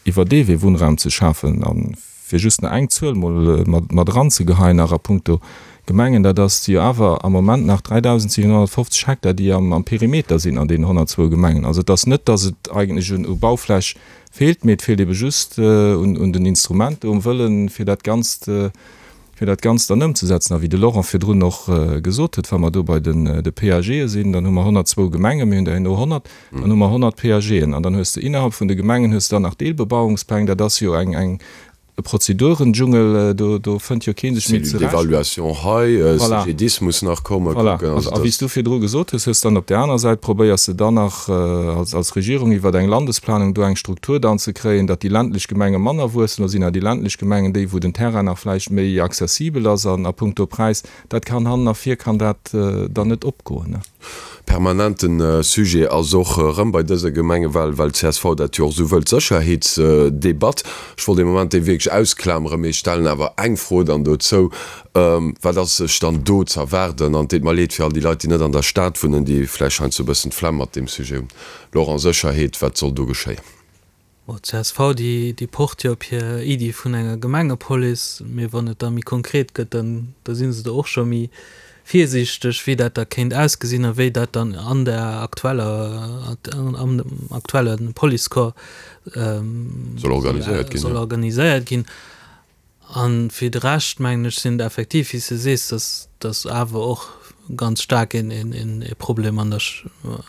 iwwer dee Wee Wunnraum ze schafen. A fir just nach eng Zuel mol mat eranzegeheien nach a puncto Gemengen, dat ass jo awer am Moment nach 3.750 Hektar, déi am Perimeter sinn an deenen 102 Gemengen. Also et ass net, datt et eigentlech u Baufläch feelt, mee et feelt ebe just un den Instrumenter, um Wëllen, fir dat Ganzt fir dat Ganzt dann ëmzesetzen. A wéi de Laurent virdrun och gesot huet, wa mer do bei de PAGe sinn, dann hu mer 102 Gemengen, mir hunn der herno 100, dann hu mer 100 PAGen. An dann hues de innerhalb vun de Gemengen hues de dann nach Deelbebauungspläng. Dat ass jo eng, eng, e Prozedurendschungel, do, do fënnt jo kee sech méi zurecht. Cellule d'évaluation hei, CGDIS muss nach kommen. Voilà. A wéi s du virdru gesot hues, hues dann op där aner Säit probéiers de dann nach als, als Regierung iwwer eng Landesplanung do eng Struktur dann ze kréien, datt déi ländlech Gemenge manner wuessen. Do sinn awer déi ländlech Gemengen déi, wou den Terrain nach vläicht méi accessibel ass an a puncto Präis. Dat kann hannen a vir kann dat dann net opgoen. Permanenten Sujet ass och erëm bei dëser Gemengewal, well csv dat jo och esou wëllt, d'Sécherheetsdebatt. Ech wollt ee Moment déi wierklech ausklameren, mee ech stellen awer eng Fro dann dozou, Wat ass sech dann do z'erwaarden? An et deet mer leed fir all déi Leit, déi net an der Stad wunnen, déi vläicht heiansdo e bëssen d'Flemm mat deem Sujet hunn. Laurent, Sécherheet, wat soll do geschéien? Bon, d'CSV, déi, déi pocht jo op hir Iddi vun enger Gemengepolice, mee wann et da méi konkret gëtt, dann, da si se do och scho méi virsiichteg, wéi dat da kéint ausgesinn a wéi dat dann an der aktueller, am aktuelle Policecorps Soll organiséiert ginn, soll organiséiert ginn. A fir de Rescht, mengen ech, sinn et effektiv, wéi s de sees, dass dass awer och ganz staark een een e Problem an der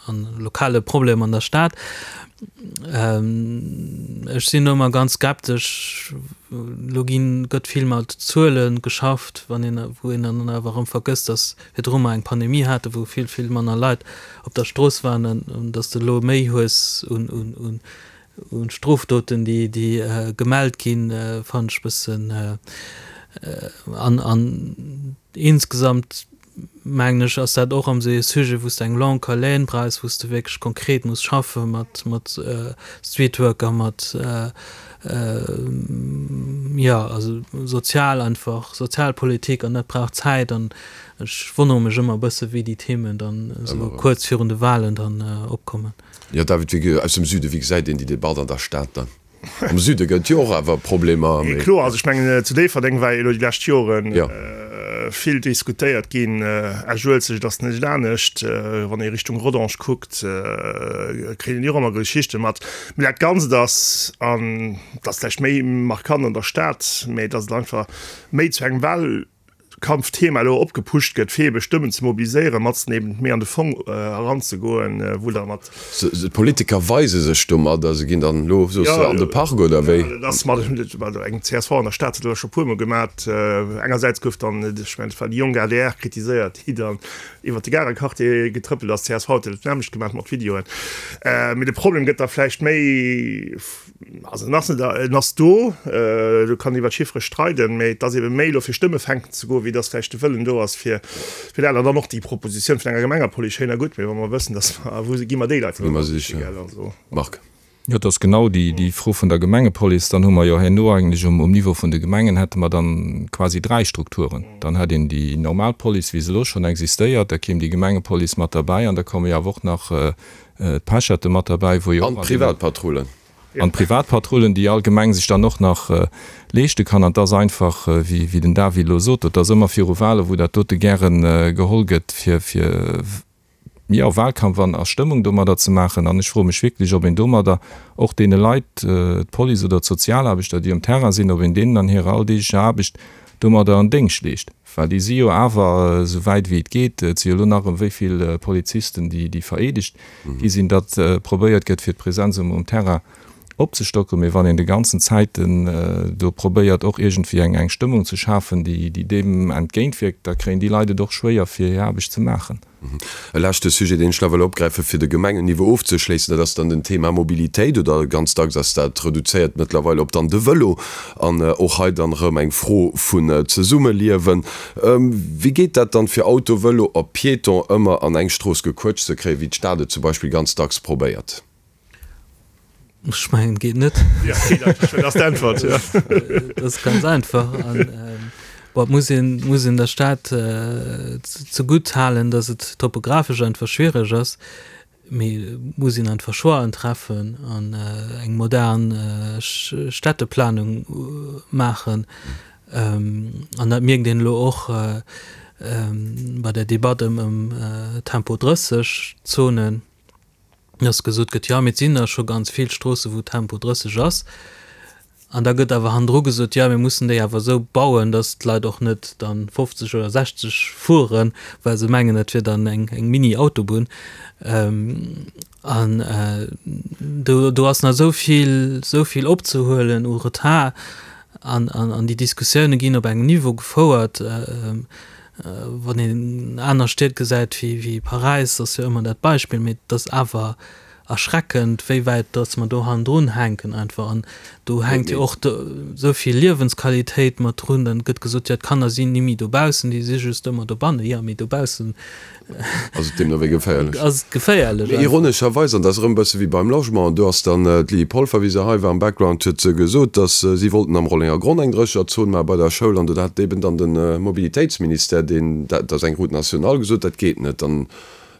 an lokale Problem an der Stad. Ech sinn do ëmmer ganz skeptesch. Elo ginn, gëtt vill mat Zuele geschafft, wann een, wou een dann awer erëm vergësst, dass virdru mer eng Pandemie haten, wou vill, vill manner Leit op der Strooss waren an dass de elo méi hues un un un Un Strofdoten, déi gemellt ginn, fannen ech bëssen. An an insgesamt mengen ech, ass dat och erëm esou ee Sujet, wou s de eng longue haleine brauchs, wou s de wierklech konkret muss schaffe mat mat Streetworker, mat jo also sozial einfach, Sozialpolitik an dat brauch Zäit. An ech wonnere mech ëmmer e bësse wéi déi Themen dann esou kuerz virun de Wahlen dann opkommen. Jo, David, wéi, aus dem Süden, wéi gesäit een déi Debatt an der Stad dann? Am Süde gëtt jo och awer Problemer. Mee kloer, also ech mengen zu Déifferdeng war jo elo déi lescht Joren vill diskutéiert ginn. Esch-Uelzecht ass net anescht. Wann ee Richtung Rodange kuckt, kritt een jo och ëmmer Geschichte mat. Mee dat Ganzt ass, an dat ass vläicht méi markant an der Stad, mee datt et einfach méi zu engem Wahl. Kampfthema elo opgepusht gëtt, fir ebe Stëmmen ze mobiliséieren, matzen eben méi an de Fong eranzegoen, wou da mat. D'Politiker weise sech domadder, se ginn dann elo, soos de, an de Park oder wéi? Jo, dat ass mat eng csv an der Stad huet dat elo scho puermol gemat. Engersäits gouf dann, ech mengen et war déi jonk adr, kritiséiert, déi dann iwwert de Garequartier getrëppelt ass. Csv huet dat nämmlecht gemat mat Videoen. Mee de Problem gëtt da vläicht méi. Also en ass net, en ass do, do kann een iwwer d'Chiffere streiden, mä et ass ebe méi elo fir Stëmme fänken ze goen, wéi datt vläicht de Wëllen do ass fir fir dat. An dann och déi Propositioun vun enger Gemengepolice, schéin a gutt, mä wa mer wëssen, datt mer, wou gi mer déi Leit dann ënner, gell, also. Marc. Jo, et ass genau déi déi Fro vun der Gemengepolice. Dann hu mer jo herno eigentlech um um Niveau vun de Gemengen hätte mer dann quasi dräi Strukturen. Dann hätt een déi normal Police, wéi se elo schonn existéiert, da kéim déi Gemengepolice mat derbäi an da komme jo awer och nach d'Pecherte mat derbäi, wou jo och. An d'Privatpatrullen. An d'Privatpatrullen, déi all Gemeng sech dann och nach leeschte kann. An et ass einfach, wéi den David elo sot, et ass ëmmer viru Wahlen, wou dat dote gäre geholl gëtt, fir, fir, jo, Wahlkampf an a Stëmmung domadder ze maachen. An ech froe mech wierklech, ob een domadder och deene Leit, d'Police oder d'Sozialaarbechter, déi um Terrain sinn, ob een deenen an hirer alldeeglecher Aarbecht domadder en Déngscht leescht. Well déi si jo awer, esou wäit wéi et geet, et si jo elo nach erëm wéi vill Polizisten, déi vereedegt gi sinn, datt probéiert gëtt, fir d'Presenz um Terrain opzestocken. Mee wann een de ganzen Zäiten do probéiert, och iergendwéi eng Stëmmung ze schafen, déi deem entgéintwierkt, da kréien déi Leit et och schwéier, fir hir Aarbecht ze maachen. E leschte Sujet, deen ech nach wëll opgräifen, fir de Gemengenniveau ofzeschléissen, dat ass dann den Thema Mobilitéit, oder ganz dacks ass dat reduzéiert mëttlerweil op dann de Vëlo. An och hei dann erëm eng Fro vun Zesummeliewen. Wéi geet dat dann, fir Auto, Vëlo a Piéton ëmmer an eng Strooss gequëtscht ze kréien, wéi d'Stad et zum Beispill ganz dacks probéiert? Ech mengen, geet net. Ja, geet einfach. Dat ass d'Äntwert, ja. Dat ass ganz einfach. An bon, et muss een, muss een der Stad zegutt halen, datt et topografesch einfach schwiereg ass. Mee et muss een einfach Choixen treffen an eng modern Städteplanung maachen. An dat mierkt een elo och bei der Debatt ëm Tempo 30 Zonen. dass gesot gëtt, jo, mee et sinn der scho ganz vill Stroosse wou Tempo 30 ass. An da gëtt awer hannendru gesot, jo, mir mussen déi awer esou bauen, dass d'Leit och net dann 50 oder 60 fueren, well se mengen, dat wier dann eng, eng Mini-Autobunn. An do, do ass nach esou vill, esou vill opzehuelen u Retard. An, an, an déi Diskussioune ginn op engem Niveau gefouert, Wann een aner Stied gesäit wéi Paräis, ass jo ëmmer dat Beispill, mee et ass awer erschreckend, wéi wäit datt mer do hannendrun hänken einfach. An do hänkt jo och esou vill Liewensqualitéit mat drun. Dann gëtt gesot, jo d'Kanner sinn ni méi dobaussen, déi si just ëmmer dobannen. Jo, mee dobaussen Ass et deemno wéi geféierlech? Ass et geféierlech. Mee ironescherweis, an dat ass erëm e bësse wéi beim Logement, do ass dann d'Lydie Polfer, wéi se hei war am Background, huet se gesot, datt si wollten am Rollenger Gronn eng Drécherzon maache bei der Schoul an do hat eben dann de Mobilitéitsministère, deen, dat ass eng Route nationale, gesot, dat geet net. Dann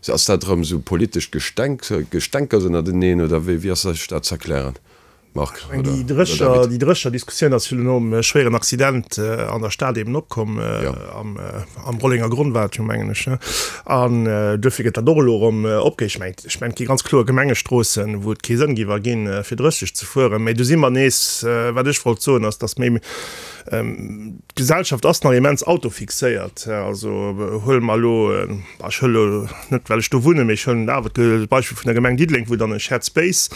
ass dat erëm esou politescht Gestenk, Gestänkers ënnerteneen oder wéi, wéi ass sech dat z'erklären? Marc oder Déi Drécher, David? déi Drécher-Diskussioun ass jo nom schwéieren Accident an der Stad eben opkomm, am, am Rollenger Gronn war et jo, mengen ech, ne? An duerfir gëtt dat och elo erëm opge. Ech mengen, ech mengen, et gi ganz kloer Gemengestroossen, wou et kee Sënn géif erginn, fir 30 ze fueren. Mä do si mer nees, wat ech wollt soen, ass, datt méi, D'Gesellschaft ass nach immens autofixéiert. Also huele mer elo, ech huele elo net well ech do wunnen, mee ech huelen awer d'Beispill vun der Gemeng Diddeleng, wou dann e Shared Space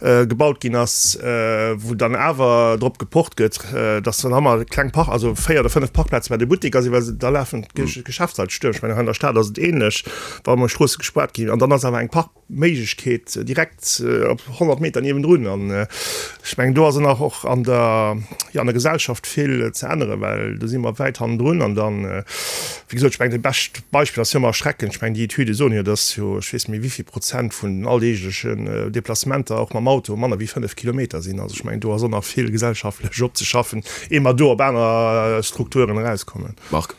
gebaut ginn ass, wou dann awer drop gepocht gëtt, dass dann ëmmer kleng Park, also 4 oder 5 Parkplaze bei de Butteker sinn, well da lafen d'Geschäftsleit stuerm. Ech mengen hei an der Stad ass et ähnlech, wa emol Stroosse gespaart ginn an dann ass awer eng Park. Méiglechkeet direkt op 100 Meter niewendrun. An ech mengen, do ass nach och an der, jo, an der Gesellschaft vill ze änneren, well do si mer wäit hannendrun. An dann, wéi gesot, ech mengen, dat bescht Beispill ass jo ëmmer erschreckend, ech mengen, déi Etüde soen jo, dass jo, ech weess net méi wéi vill Prozent vun den alldeeglechen Deplacementer och mam Auto manner wéi 5 Kilometer sinn. Also ech mengen, do ass och nach vill gesellschaftlech opzeschaffen, ier mer do op aner Strukturen erauskommen. Marc.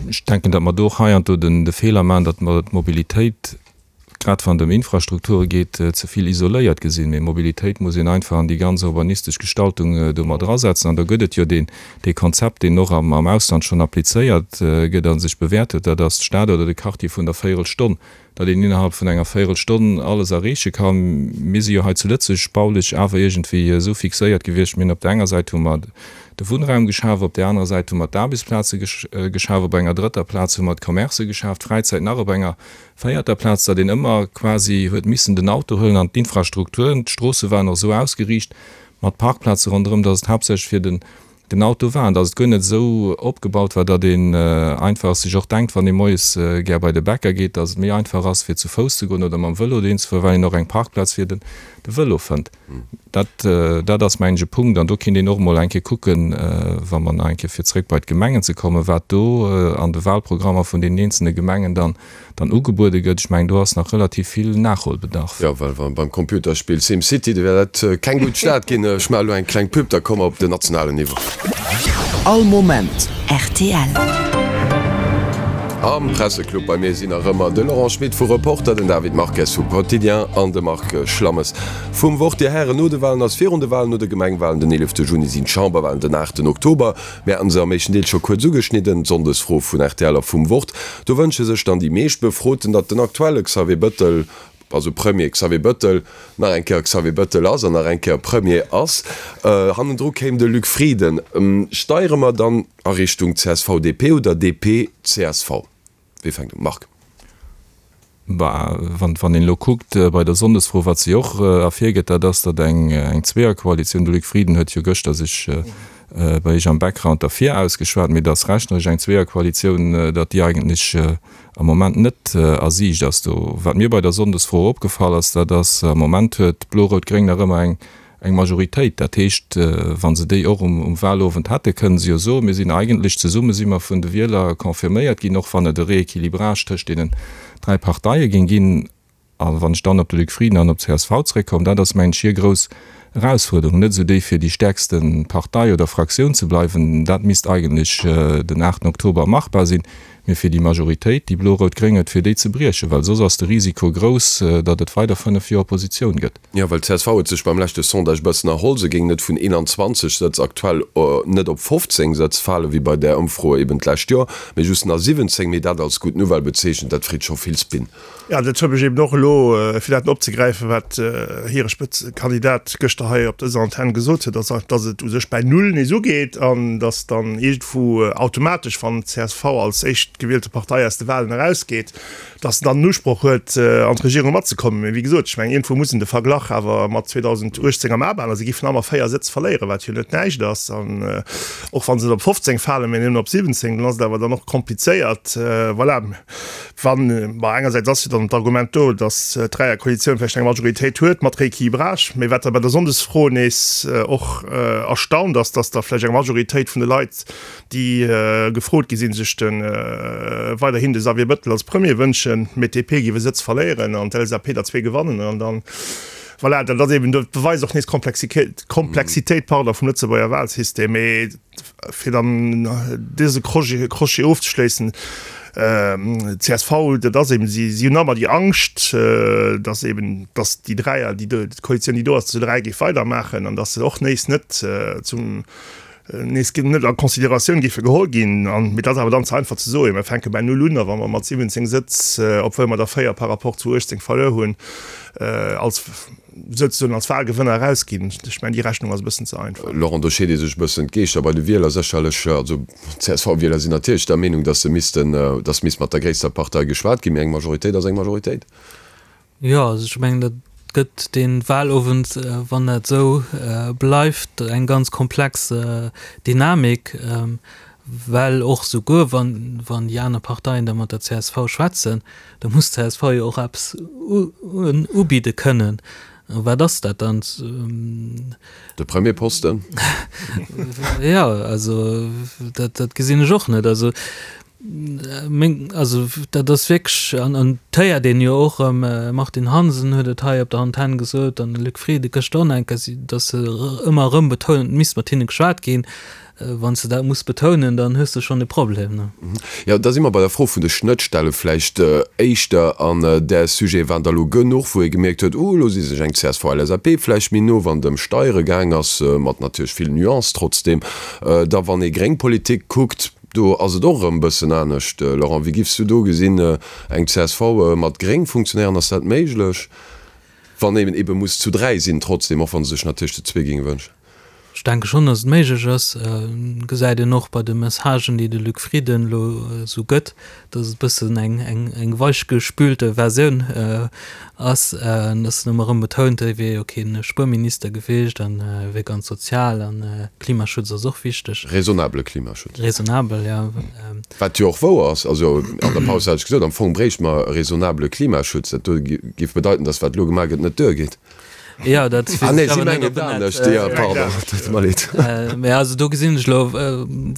Ech denken, datt mer do och heiansdo de Feeler maachen, datt mer d'Mobilitéit. grad wann et ëm Infrastrukture geet, ze vill isoléiert gesinn. Mee Mobilitéit muss een einfach an déi ganz urbanistesch Gestaltung do mat erasetzen. An do gëtt et jo deen, dee Konzept, deen och am Ausland schonn applizéiert gëtt a sech bewäert huet, dat ass d'Stad oder de Quartier vun der Véierelstonn, datt een innerhalb vun enger Véierelstonn alles erreeche kann. Mir si jo hei zu Lëtzebuerg baulech awer iergendwéi esou fixéiert gewiescht, mir hunn op der enger Säit hu mer de Wunnraum geschaf, op där anerer Säit hu mer d'Aarbechtsplaze geschaf, op enger drëtter Plaz hu mer d'Commercë geschaf, d'Fräizäit nach op enger véierter Plaz, datt een ëmmer quasi huet missen den Auto huelen an d'Infrastrukturen, d'Stroosse waren och esou ausgeriicht mat Parkplaze ronderëm, datt et haaptsächlech fir den den Auto war an datt et guer net esou opgebaut war, datt een einfach sech och denkt, wann ee moies gär bei de Bäcker geet, datt et méi einfach ass fir zu Fouss ze goen oder mam Vëlo dohin ze fueren, well een och eng Parkplaz fir de Vëlo fënnt. Dat, dat ass mengen ech e Punkt an do kinnt een och emol eng Kéier kucken, wa mer nach eng Kéier fir zréck bei d'Gemengen ze kommen, wat do an de Wahlprogrammer vun deenen eenzelne Gemengen dann dann ugebuede gëtt. Ech mengen, do ass nach relativ vill Nachholbedarf. Jo, well wa beim Computerspill SimCity, do wär dat keng gutt Stad ginn. Ech maache elo eng kleng Pub, da komme mer op den nationalen Niveau. All Moment rtl. Am Presseclub bei mir sinn nach ëmmer de Laurent Schmit vu Reporter, den David Marques vu Quotidien an de Marc Schlammes vum Wort. Dir Hären, no de Walen ass virun de Walen, no de Gemengwalen den 11 Juni sinn d'Chamberwalen den 8 Oktober. Mir haten se am éischten Deel scho kuerz ugeschnidden, d'Sonndesfro vun rtl a vum Wort. Do wënsche sech dann déi meescht Befroten, datt den aktuelle Xavier Bëttel, also Premier Xavier Bëttel, nach eng Kéier Xavier Bëttel ass an nach eng Kéier Premier ass. Hannendru kéim de Luc Frieden. Steiere mer dann a Richtung CSV-DP oder DP-CSV? Wie fänkt un? Marc. Bah, wann, wann een elo kuckt bei der Sonndesfro, wat se jo och ervirgëtt, dat ass, datt eng, eng Zweeërkoalitioun, de Luc Frieden huet jo gëschter sech bei Iech am Background derfir ausgeschwat, mee datt rechneresch eng Zweeërkoalitioun, datt déi eigentlech am Moment net a Siicht ass. Do, wat mir bei der Sonndesfro opgefall ass, dat ass, am Moment huet Blo-Rout-Gréng nach ëmmer eng, eng Majoritéit. Dat heescht, wa se déi och um Wahlowend hätte, kënnen se jo soen, mir sinn eigentlech zesumme si mer vun de Wieler confirméiert ginn, och wann et e Rééquilibrage tëscht deenen 3 Parteie géing ginn. A wann ech dann op de Luc Frieden an op d'CSV zréckkommen, dat ass, mengen ech, hir grouss Erausfuerderung, net esou déi fir déi stäerkste Partei oder Fraktioun ze bleiwen, dat misst eigentlech den 8 Oktober machbar sinn, mee fir déi Majoritéit, déi blo-rout-gréng huet, fir déi ze briechen, well soss ass de Risiko grouss, datt et weider 5 Joer Oppositioun gëtt. Jo, well csv huet sech beim leschte Sondage e bëssen erholl. Se géing net vun 21 Sëtz aktuell net op 15 Sëtz falen, wéi bei där Ëmfro eben d'lescht Joer, mee just nach 17. Mee dat als gutt Nouvelle bezeechent, dat freet scho vill Spin. Jo, dat huet mech eben och elo, fir dat opzegräifen, wat hire Spëtzekandidat gëschter hei op dëser Antenn gesot huet, dass dass et u sech bäi Null nees ugeet an dass dann iergendwou automatesch, wann csv als éischt gewielte Partei aus de Walen erausgeet, dass en dann den Usproch huet, an d'Regierung matzekommen. Mee wéi gesot, ech mengen, iergendwou muss een de Verglach awer mat 2018 am A behalen. Se géifen ëmmer 4 Sëtz verléieren, wat jo net näischt ass. An och wa se net op 15 falen, mee nëmmen op 17, dann ass et awer dann och komplizéiert. Voilà, wann, bon, engersäits ass jo dann d'Argument do, dass d'Dräierkoalitioun vläicht eng Majoritéit huet mat Rééquilibrage. Mee wat da bei der Sonndesfro nees och erstaunt ass, dass da vläicht eng Majoritéit vun de Leit, déi gefrot gi sinn, sech de weiderhin de Xavier Bëttel als Premier wënschen, mee d'DP géif e Sëtz verléieren an d'LSAP der zwee gewannen. An dann, voilà, dat ass eben, dat beweist och nees d'Komplexitéit, pardon, vum Lëtzebuerger Wahlsystem. Mee fir dann dëse Crochet ofzeschléissen, csv, dat ass eben, si hunn ëmmer déi Angscht, datt eben, datt déi Dräier, déi do, d'Koalitioun, déi do ass, zu dräi géif weidermaachen an datt se och nees net zum, nees net a Consideratioun géife geholl ginn. An mee dat ass awer dann ze einfach ze soen, mir fänke bei null un a wa mer mat 17 Sëtz, obwuel mer der 4 par rapport zu 18 verluer hunn, als souzesoen als Wahlgewënner erausginn. Ech mengen, déi Rechnung ass e bëssen ze einfach. Laurent, do scheet ee sech e bëssen d'Geeschter bei de Wieler sécherlech. Also d'CSV-Wieler sinn natierlech der Meenung, datt se missten, datt misst mat der gréisster Partei geschwat ginn, mee eng Majoritéit ass eng Majoritéit. Jo, also ech mengen, dat gëtt dee Wahlowend, wann dat esou bleift, eng ganz komplex Dynamik, well och souguer wann, wann déi aner Parteien da mat der csv schwätzen, da muss d'CSV jo och eppes ubidde kënnen. A wat ass dat dann? De Premierposten? Jo, also dat, dat gesinn ech och net. Also. Meng, also dat ass wierklech, an an et héiert een jo och erëm, Martine Hansen huet et hei op der Antenn gesot an de Luc Frieden gëschter och nach eng Kéier, datt se ëmmer erëm betounen, et misst mat hinne geschwat ginn. Wann s de dat muss betounen, dann hues de schonn e Problem, ne? Jo, da si mer bei der Fro vun de Schnëttstelle vläicht éischter. An där Sujete waren der elo genuch, wou ee gemierkt huet, uh, elo si sech eng CSV-LSAP vläicht méi no, wann et ëm Steiere gaang ass, mat natierlech vill Nuance trotzdem. Da wann ee gréng Politik kuckt, do ass et och erëm e bëssen anescht. Laurent, wéi giffs du do gesinn, eng csv mat gréng Funktionären, ass dat méiglech, wann een ebe muss zu 3 sinn trotzdem, och wa se sech natierlech zu zwee géinge wënschen? Ech denke schonn, datt et méiglech ass. Gesäit een och bei de Messagen, déi de Luc Frieden elo esou gëtt, datt et e bëssen eng eng weichgespülte Versioun ass, datt en ëmmer erëm betount, e wier jo kee Spuerminister gewiescht an e wier ganz sozial an Klimaschutz ass och wichteg. Raisonnabele Klimaschutz. Raisonnabel, jo. Wat jo och wouer ass. Also an der Paus hat ech gesot, am Fong bréichte mer e raisonnabele Klimaschutz. Dat do géif bedeiten, datt wat elo gemaach gëtt, net duergeet. Ja, dat Ah nee, si mengen et anescht. Ja, pardon, tut mer leed. Mä also do gesinn ech elo,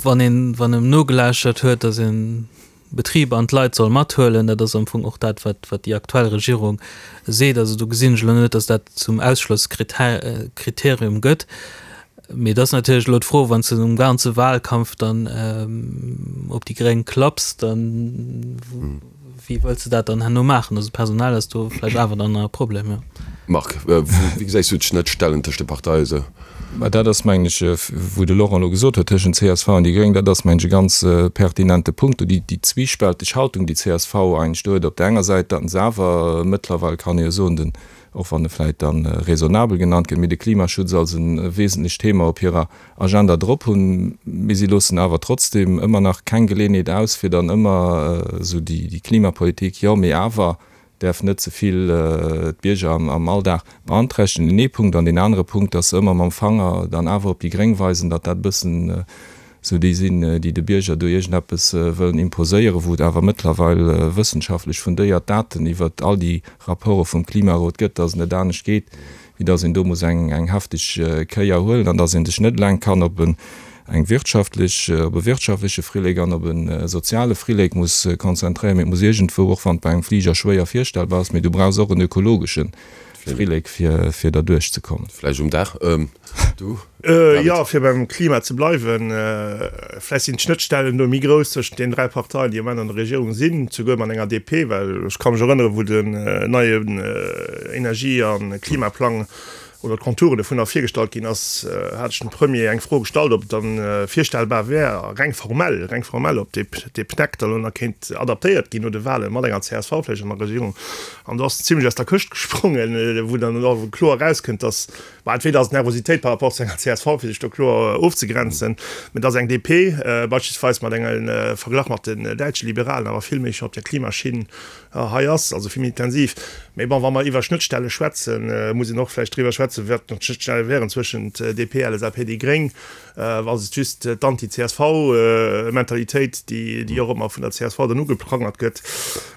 wann een, wann en nogelauschtert huet, datt een Betriber an d'Leit soll mathuelen, dat ass am Fong och dat, wat, wat déi aktuell Regierung seet. Also do gesinn ech elo net, datt dat zum Ausschlosskriterium gëtt. Mee et ass natierlech elo d'Fro, wann s de um ganze Wahlkampf dann op déi Gréng klapps, dann Wéi wëlls de dat dann herno maachen? Also personell ass do vläicht awer dann nach e Problem, jo. Marc, wéi gesäis du d'Schnëttstellen tëscht de Parteie sou? Mä dat ass, mengen ech, wou de Laurent elo gesot huet, tëschent csv an déi Gréng, dat ass, mengen ech, e ganz pertinente Punkt do, déi zwiespälteg Haltung, déi csv eigentlech do huet. Op där enger Säit, datt se awer mëttlerweil, kann ee jo soen, den, och wann e vläicht da raisonnabel genannt gëtt, mee de Klimaschutz als e wesentlecht Thema op hirer Agenda drop hunn, mee si loossen awer trotzdem ëmmer nach keng Geleeënheet aus, fir dann ëmmer esou déi Klimapolitik, jo, mee awer däerf net ze vill d'Bierger am Alldag beanträchtegen, deen ee Punkt. An deen anere Punkt, dass se ëmmer mam Fanger dann awer op déi Gréng weisen, datt dat e bëssen esou déi sinn, déi de Bierger do iergendeppes wëllen imposéieren, wou et awer mëttlerweil wëssenschaftlech fundéiert Daten iwwert all déi Rapporte vum Klimarot gëtt, dass et net anescht geet, wéi dass een do muss eng eng hefteg Kéier huelen an dass ee sech net eleng kann op en eng wirtschaftlech, op e wirtschaftleche Frillek an op e soziale Frillek muss konzentréieren, mee et muss iergendwou, och wann et bei engem Fliger schwéier virstellbar ass, mee du brauchs och en ökologesche Frillek fir fir derduerch ze kommen. Vläicht um Daach, du? Jo, fir beim Klima ze bleiwen, vläicht sinn d'Schnëttstellen do méi grouss tëschent deenen 3 Parteien, déi am Moment an der Regierung sinn, souguer mat enger DP, well ech ka mech erënneren, wou den neien Energie a Klimaplang oder d'Konturen dovunner virgestallt ginn ass, hat ech dem Premier eng Fro gestallt, ob et dann virstellbar wär, reng formell, reng formell, ob dee PNEC da lo nach kéint adaptéiert ginn no de Wahlen, mat enger csv vläicht an der Regierung. An do ass en zimlech aus der Këscht gesprongen, wou dann och kloer erauskënnt, dass, Bah, entweder ass et Nervositéit par rapport zu enger csv, fir sech do kloer ofzegrenzen, mä dass eng DP beispillsweis mat engem Verglach mat den däitsche Liberalen awer vill méi scho op der Klimaschinn hei ass, also vill méi intensiv. Mä bon, wa mer iwwer Schnëttstelle schwätzen, muss een och vläicht driwwer schwätzen, wat nach d'Schnëttstelle wären zwëschent DP, LSAP, déi Gréng. Ass et just d'Anti-CSV-Mentalitéit, déi och ëmmer vun der csv dann ugeprangert gëtt?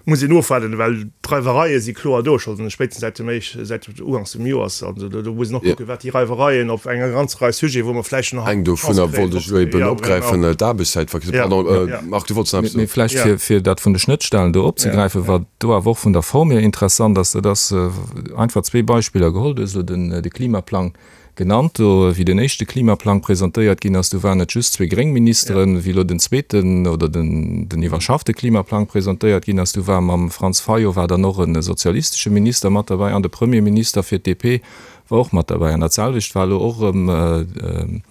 Muss een ofwaarden, well d'Reiwereie si kloer do, scho spéitstens säit dem éisch, säit uganks vum Joers. Also do muss een och kucken, wat déi Reiwereien op enger ganzer Rei Sujeten, wou mer vläicht nach Eng dovunner wollt ech elo eben opgräifen, d'Aarbechtszäitverkürzung. Pardon, Marc, du wollts nach eppes soen. Mee vläicht fir, fir dat vun de Schnëttstellen do opzegräifen, wat do awer och vun der Form hier interessant ass, dat ass einfach zwee Beispiller geholl, du hues elo den, de Klimaplang Genannt. Do, wéi den éischte Klimaplang presentéiert ginn ass, do waren et just zwee gréng Ministeren. Wéi elo den zweeten oder den den iwwerschaffte Klimaplang presentéiert ginn ass, do war mam Franz Fayot war dann och e sozialistesche Minister mat derbäi an de Premierminister fir d'DP war och mat derbäi. An dat selwecht war elo och erëm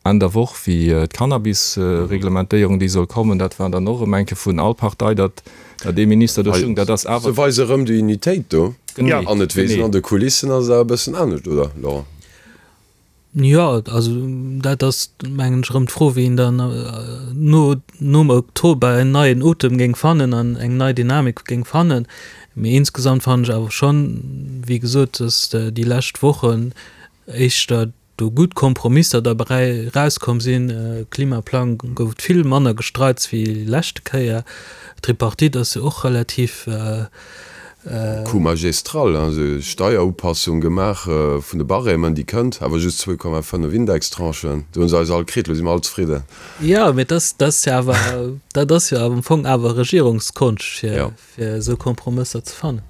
Enn der Woch, wéi d'Cannabis-Reglementéierung, déi soll kommen, dat war dann och erëm eng Kéier vun all Partei, datt datt ee Minister do stoung. Dat ass awer. Se weise erëm déi Unitéit do. Genee. An et weess een, an de Kulissen ass et awer e bëssen anescht, oder Laurent? Jo, also dat ass, mengen ech, erëm d'Fro, wéi een dann no nom Oktober en neien Otem géing fannen an eng nei Dynamik géing fannen. Mee insgesamt fannen ech awer schonn, wéi gesot, datt déi lescht Wochen éischter do gutt Kompromisser derbäi erauskomm sinn. Klimaplang gouf et vill manner Gestreits wéi leschte Kéier. D'Tripartite ass jo och relativ. Coup magistral, also Steierupassung gemaach vun de Barèmen, déi kënnt, awer just 2,5 Indextranchen. Do hu se eis all kritt, elo si mer all zefridden. Jo, mee dat ass jo awer, dat ass jo am Fong awer Regierungskonscht, fir esou Kompromësser ze fannen.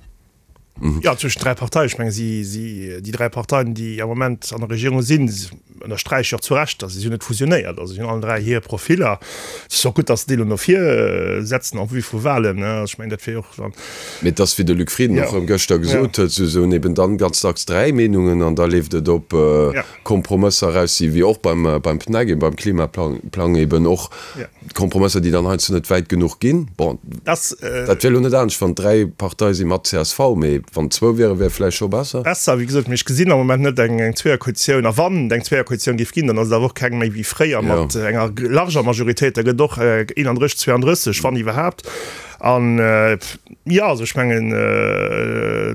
Jo, zwëschen 3 Parteien. Ech menge si, si, déi 3 Parteien, déi am Moment an der Regierung sinn, ënnersträiche jo och zu Recht, datt si hunn net fusionéiert. Also si hunn allen 3 hir Profiller. Et ass och gutt, datt se déi elo no vir setzen en vue vu Wahlen. Ech mengen, dat wier jo och dann. Mee et ass, wéi de Luc Frieden och erëm gëschter gesot huet, se hunn eben dann ganz dacks 3 Meenungen an da leeft et op Kompromësser eraus, déi wéi och beim, beim PNEC, eben beim Klimaplang eben och Kompromësser, déi dann heiansdo net wäit genuch ginn. Bon, dat wier elo net anescht, wann et 3 Parteie si mat csv, mee wann et zwou wieren, wär vläicht scho besser. Besser, wéi gesot, mee ech gesinn am Moment net eng Zweeërkoalitioun. A wann et eng Zweeërkoalitioun géif ginn, dann ass et awer och keng méi wéi fréier mat enger larger Majoritéit. Da gëtt et och 31, 32, wann iwwerhaapt. An, jo, also ech mengen,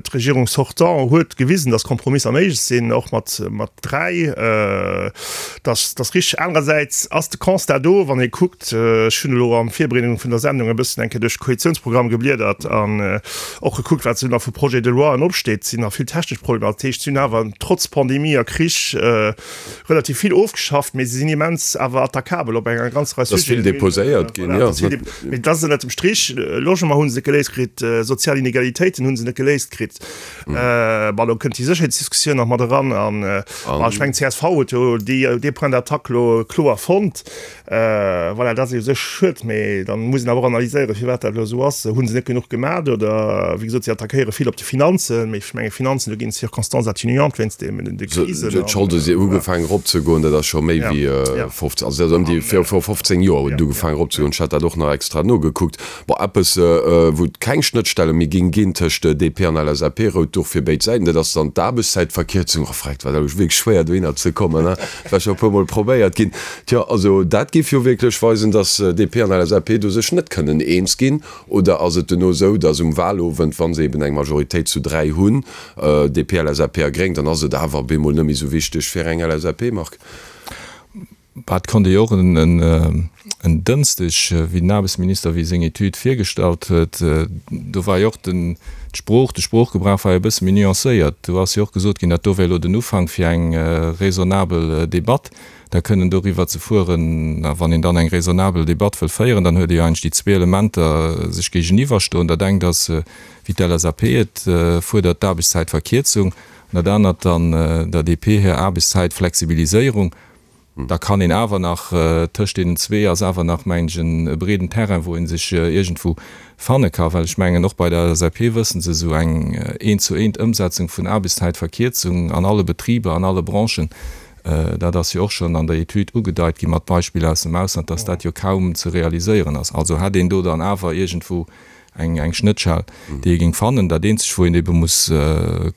d'Regierung sortant huet gewisen, datt Kompromisser méiglech sinn, och mat, mat 3. Dat ass richteg. Anerersäits ass de Constat do, wann ee kuckt, ech hunn elo an Virbereedung vun der Sendung e bëssen eng Kéier duerch de Koalitiounsprogramm gebliedert an och gekuckt, wat esou nach vu Projets de loien opsteet, sinn nach vill technesch Problemer. Dat heescht, si hunn awer trotz Pandemie a Krich relativ vill ofgeschafft, mee se sinn immens awer attaquabel op enger ganzer Rei Sujeten. Et ass vill deposéiert ginn, jo. Mee dat ass ënnert dem Strich, Logement hu se net geléist kritt, sozial Inegalitéiten hu se net geléist kritt. Bon, elo kënnt déi Sécherheetsdiskussioun nach mat eran an ech mengen, csv huet jo dee Point d'attaque elo kloer fonnt. Voilà, dat ass u sech schued, mee dann muss een awer och analyséieren, firwat dat elo esou ass. Hu se net genuch gemat oder, wéi gesot, si attackéiere vill op de Finanzen, mee ech menge Finanzen, do ginn et Circonstances atténuantes wéinst de Krisen. D'Scholde si ugefaangen eropzegoen, dat ass scho méi wéi 15, also dat ass ëm déi viru 15 Joer huet et ugefaangen eropzegoen. Ech hat dat och nach extra nogekuckt. Bon, eppes, wou et keng Schnëttstelle méi géing ginn tëscht DP an LSAP, rout Duch fir béid Säiten, dat ass dann d'Aarbechtszäitverkierzung. Oh freck, dat war elo wierklech schwéier dohinner ze kommen, hein, dat war scho e puermol probéiert ginn. Tjo, also dat géif jo wierklech weisen, datt DP an LSAP do sech net kënnen eens ginn. Oder ass et duerno esou, datt um Wahlowend, wa se eben eng Majoritéit zu 3 hunn, DP, LSAP a Gréng, dann ass et awer op eemol net méi esou wichteg fir eng LSAP, Marc? Bah, et konnt ee jo och en Dënschdeg, wéi den Aarbechtsminister, wéi seng Etüd virgestallt huet, do war jo och den, d'Sprooch, de Sproochgebrauch war jo e bësse méi nuancéiert. Do ass jo och gesot ginn, dat do wär elo den Ufank fir eng raisonnabel Debatt, da kënnen doriwwer ze fueren. A wann een dann eng raisonnabel Debatt wëll féieren, dann huet ee jo eigentlech déi zwee Elementer sech géigeniwwerstoen. Dat engt ass, wéi d'LSAP et fuerdert, d'Aarbechtszäitverkierzung, an dat anert dann der DP hir Aarbechtszäitflexibiliséierung. Da kann een awer nach, tëscht deenen zwee ass awer nach, mengen ech, e breeden Terrain, wou ee sech iergendwou fanne ka. Well ech mengen, och bei der LSAP wëssen se, esou eng eent-zu-eent Ëmsetzung vun Aarbechtszäitverkierzung an alle Betriber, an alle Branchen, dat ass jo och schonn an der Etüd ugedeit gi mat Beispiller aus dem Ausland, dass dat jo kaum ze realiséieren ass. Also hätt een do dann awer iergendwou eng Schnëttschell, déi ee géing fannen. Dat eenzegt, wou een ebe muss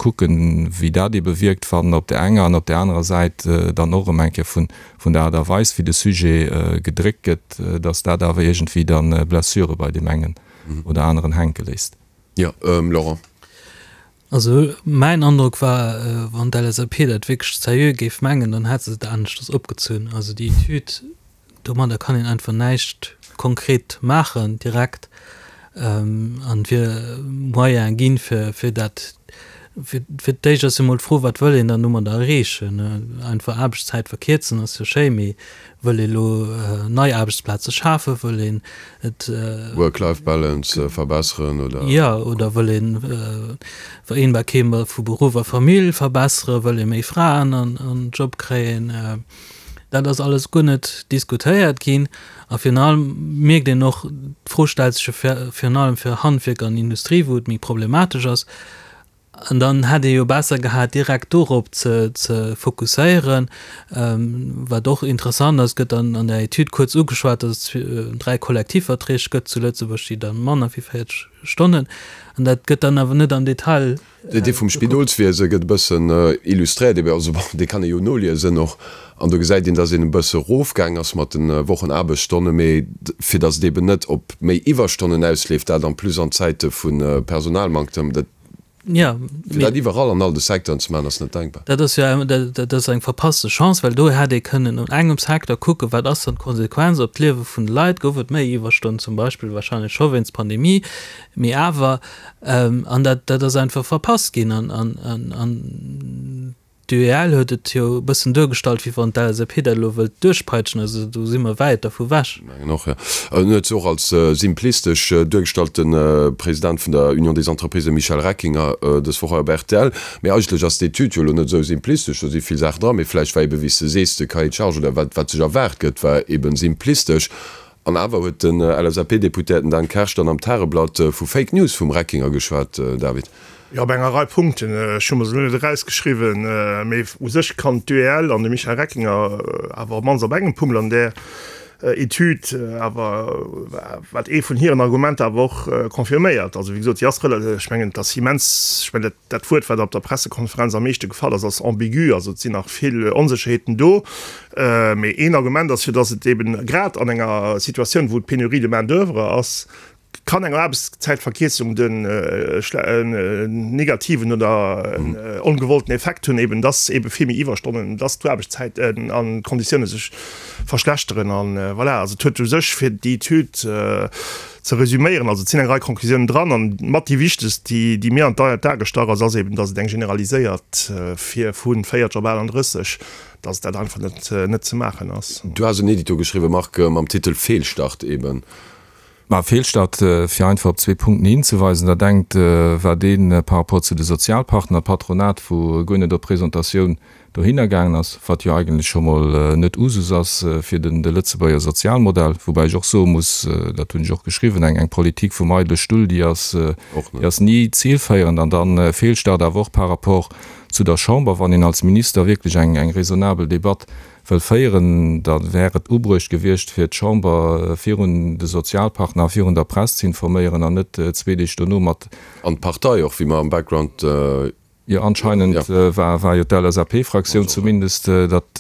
kucken, wéi dat ebe wierkt, wann op där enger an op där anerer Säit dann och erëm eng Kéier vun der Aart a Weis, wéi de Sujet gedréckt gëtt, datt dat awer iergendwéi da Blessure bei deem engen oder aneren hänke léisst. Jo, Laurent. Also mäin Androck war, wann d'LSAP dat wierklech seriö géif mengen, dann hätt se et aneschters opgezunn. Also déi Etüd, domadder kann een einfach näischt konkret maachen direkt an et wier Moyene ginn, fir fir dat, fir fir d'éischt ass jo mol d'Fro, wat wëll een dann domadder erreechen? Einfach Aarbechtszäit verkierzen ass jo schéi, mee wëll ee lo nei Aarbechtsplaze schafen, wëll een et. Work-Life-Balance verbesseren oder? Jo, oder wëll een Vereenbarkeet vu Beruff a Famill verbesseren, wëll ee méi Fraen an den Job kréien? Dat ass alles guer net diskutéiert ginn. A virun allem mierkt een och, d'Fro stellt sech jo virun allem fir Handwierk an Industrie, wou et méi problematesch ass. An dann hätt ee jo besser gehat, direkt dorop ze fokusséieren. Wat och interessant ass, gëtt an der Etüd kuerz ugeschwat, datt et 3 Kollektivverträg gëtt zu Lëtzebuerg, déi da manner wéi 40 Stonnen. An dat gëtt dann awer net am Detail. Dee vum Spidolswiese gëtt e bëssen illustréiert, ebe also bon, dee kann ee jo noliesen och. An do gesäit een, datt een e bësse erofgaang ass mat de Wochenaarbechtsstonnen, mee fir datt et eben net op méi Iwwerstonnen ausleeft, dat en plus an Zäite vu Personalmanktem, dat. Jo, Fir dat iwwerall an all de Secteuren ze maachen, ass net denkbar. Dat ass jo dat ass eng verpasste Chance, well do hätt ee kënnen un engem Secteur kucken, wat ass dann d'Konsequenz op d'Liewe vun de Leit, gouf et méi Iwwerstonnen zum Beispill, wahrscheinlech scho wéinst Pandemie, mee awer, an dat dat ass einfach verpasst ginn an an an D'UEL huet et jo e bëssen duergestallt, wéi wann d'LSAP dat elo wëllt duerchpeitschen. Also do si mer wäit dervu wech. Mengen och, jo. En huet se och als simplistesch duergestallt, de President vun der Union des Entreprises, de Michel Reckinger, dës Woch hei op rtl. Mee eigentlech ass d'Etüd jo elo net esou simplistesch, do si vill Saachen dran. Mee vläicht war ebe, wéi s de sees, de Cahier de charges oder wat, wat sech erwaart gëtt, war ebe simplistesch. An awer huet den LSAP-Deputéierten Dan Kersch dann am Tageblatt vu Fake News vum Reckinger geschwat, David. Jo, op enger Rei Punkten. Ech hu mer se elo net erausgeschriwwen, mee u sech kann d'UEL an de Michel Reckinger awer op d'mannst op engem Punkt an där Etüd awer, wat ee vun hiren Argumenter awer och confirméiert. Also wéi gesot, si ass rela-, ech mengen, et ass immens, ech mengen, dat, dat Wuert, wat op der Pressekonferenz am meeschte gefall ass, ass ambigu. Also et sinn nach vill Onsécherheeten do. Mee een Argument ass jo, datt et eben grad an enger Situatioun, wou et Pénurie de main d'oeuvre ass, kann eng Aarbechtszäitverkierzung den negativen oder ongewollten Effekt hunn, eben datt ebe vill méi Iwwerstonnen, datt d'Aarbechtszäiten an d'Konditioune sech verschlechteren. An voilà, also et huet u sech, fir déi Etüd ze resüméieren, also et sinn eng Rei Conclusiounen dran, an mat déi wichtegst, déi déi mir an d'A gestach ass, ass eben, datt et eng generaliséiert fir vu 40 op 38, datt dat einfach net net ze maachen ass. Du has en Edito geschriwwen, Marc, mam Titel Fehlstart eben. Ma Fehlstart, fir einfach op zwee Punkten hinzeweisen, Dat engt war dee par rapport zu de Sozialpartner, d'Patronat, wou guer net op Presentatioun dohinner gaangen ass, wat jo eigentlech scho mol net Usus ass fir de Lëtzebuerger Sozialmodell. Woubäi ech och soe muss, dat hunn ech och geschriwwen, eng Politik vum eidele Stull, déi ass, déi ass ni zilféierend. An dann Fehlstart awer och par rapport zu der Chamber, wann een als Minister wierklech eng raisonnabel Debatt wëll féieren, da wär et ubruecht gewiescht, fir d'Chamber virun de Sozialpartner a virun der Press ze informéieren an net zwee Deeg dono mat. An d'Partei och, wéi mer am Background. Jo, anscheinend war jo d'LSAP-Fraktioun zumindest, datt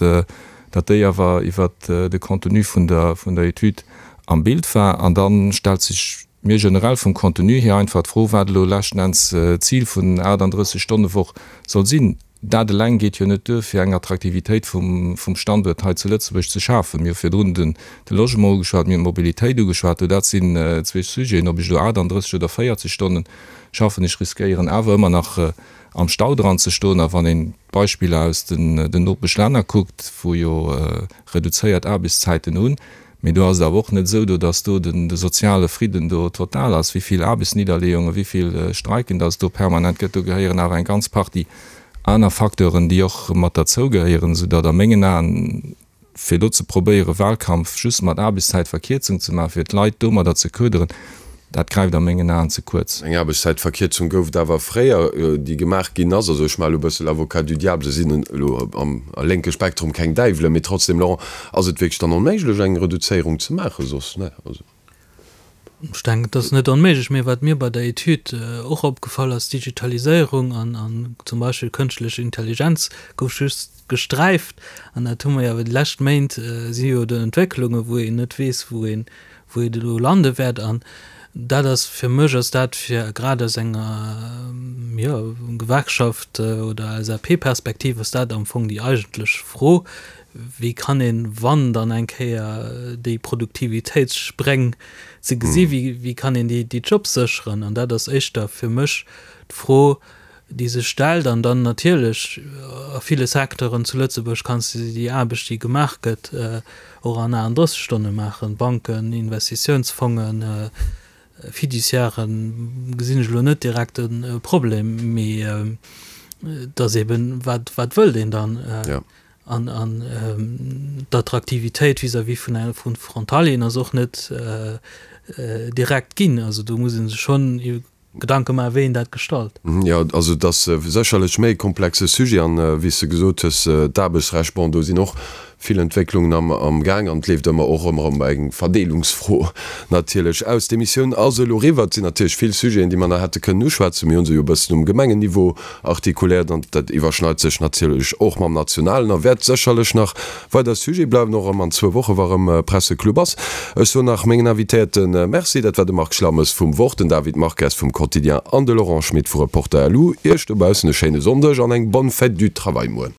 datt déi awer iwwert de Contenu vun der vun der Etüd am Bild war. An da stellt sech mir generell vum Contenu hier einfach d'Fro, wat elo leschten Enns d'Zil vun 38-Stonne-Woch soll sinn. Dat eleng geet jo net duer, fir eng Attraktivitéit vum Standuert hei zu Lëtzebuerg ze schafen. Mir hu virdrun de Logement ugeschwat, mir hunn d'Mobilitéit ugeschwat. Do dat sinn zwee Sujeten, ob ech elo 38 oder 40 Stonne schaffen, ech riskéieren awer ëmmer nach am Stau dran ze stoen. A wann een d'Beispiller aus den Nopeschlänner kuckt, wou jo reduzéiert Aarbechtszäiten hunn, Mee do ass et awer och net esou do, datt do de soziale Fridden do total ass. Wéi vill Aarbechtsnidderleeungen, wéi vill Streiken datt et do permanent gëtt, do gehéieren awer eng ganz Partie aner Facteuren, déi och mat derzou gehéieren, soudatt a mengen Aen, fir elo ze probéieren, Wahlkampf just mat Aarbechtszäitverkierzung ze maachen, fir d'Leit domadder ze köderen, Dat gräift a mengen Aen ze kuerz. Eng Aarbechtszäitverkierzung gouf et awer fréier, déi gemaach ginn ass. Also ech maache elo e bësse l'avocat du diable, se sinn elo am lénke Spektrum keng Däiwelen, mee trotzdem, Laurent, ass et wierklech dann onméiglech eng Reduzéierung ze maachen soss? Ne, also. Ech denken, et ass net onméiglech, mee wat mir bei der Etüd och opgefall ass, Digitaliséierung an zum Beispill kënschtlech Intelligenz gouf just gesträift an dat hu mer jo awer déi lescht Méint, si jo do Entwécklungen, wou een net weess, wou een wou et elo lande wäert. An dat ass fir mech ass dat fir grad aus enger, jo, Gewerkschaft oder LSAP-Perspektiv ass dat am Fong déi eigentlech Fro, Wéi kann een, wann dann eng Kéier déi Produktivitéitsspréng ze gesi, wéi kann een déi Jobs sécheren? An dat ass éischter fir mech d'Fro, déi sech stellt. An dann natierlech a ville Secteuren zu Lëtzebuerg kanns de déi Aarbecht, déi gemaach gëtt, och an 38 Stonne maachen. Banken, Investitiounsfongen, Fiduciairen, gesinn ech elo net direkt e Problem. Mee et ass eben, wat wat wëllt een dann? An an d'Attraktivitéit vis-à-vis vun vu Frontalieren ass och net direkt ginn. Also do muss ee sech schonn Gedanke maachen, wéi een dat gestalt. Jo, also et ass sécherlech méi e komplexe Sujet an, wéi s de gesot hues, d'Aarbechtsrecht, bon, do sinn och. Vill Entwécklungen am am Gaang an et leeft ëmmer och ëmmer ëm eng Verdeelungsfro natierlech aus. D'Emissioun ass elo eriwwer. Et sinn natierlech vill Sujeten, déi mer nach hätte kënnen uschwätzen. Mir hu se jo e bëssen um Gemengenniveau artikuléiert an dat iwwerschneit sech natierlech och mam nationalen a wäert sécherlech nach weider Sujet bleiwen, och erëm an zwou Woche wa rëm Presseclub ass. Ech soen nach mengen Invitéierte Merci. Dat war de Marc Schlammes vum Wort, den David Marques vum Quotidien an de Laurent Schmit vu Reporter. Lu. Iech dobaussen e schéine Sonndeg an eng bonne fête du travail muer.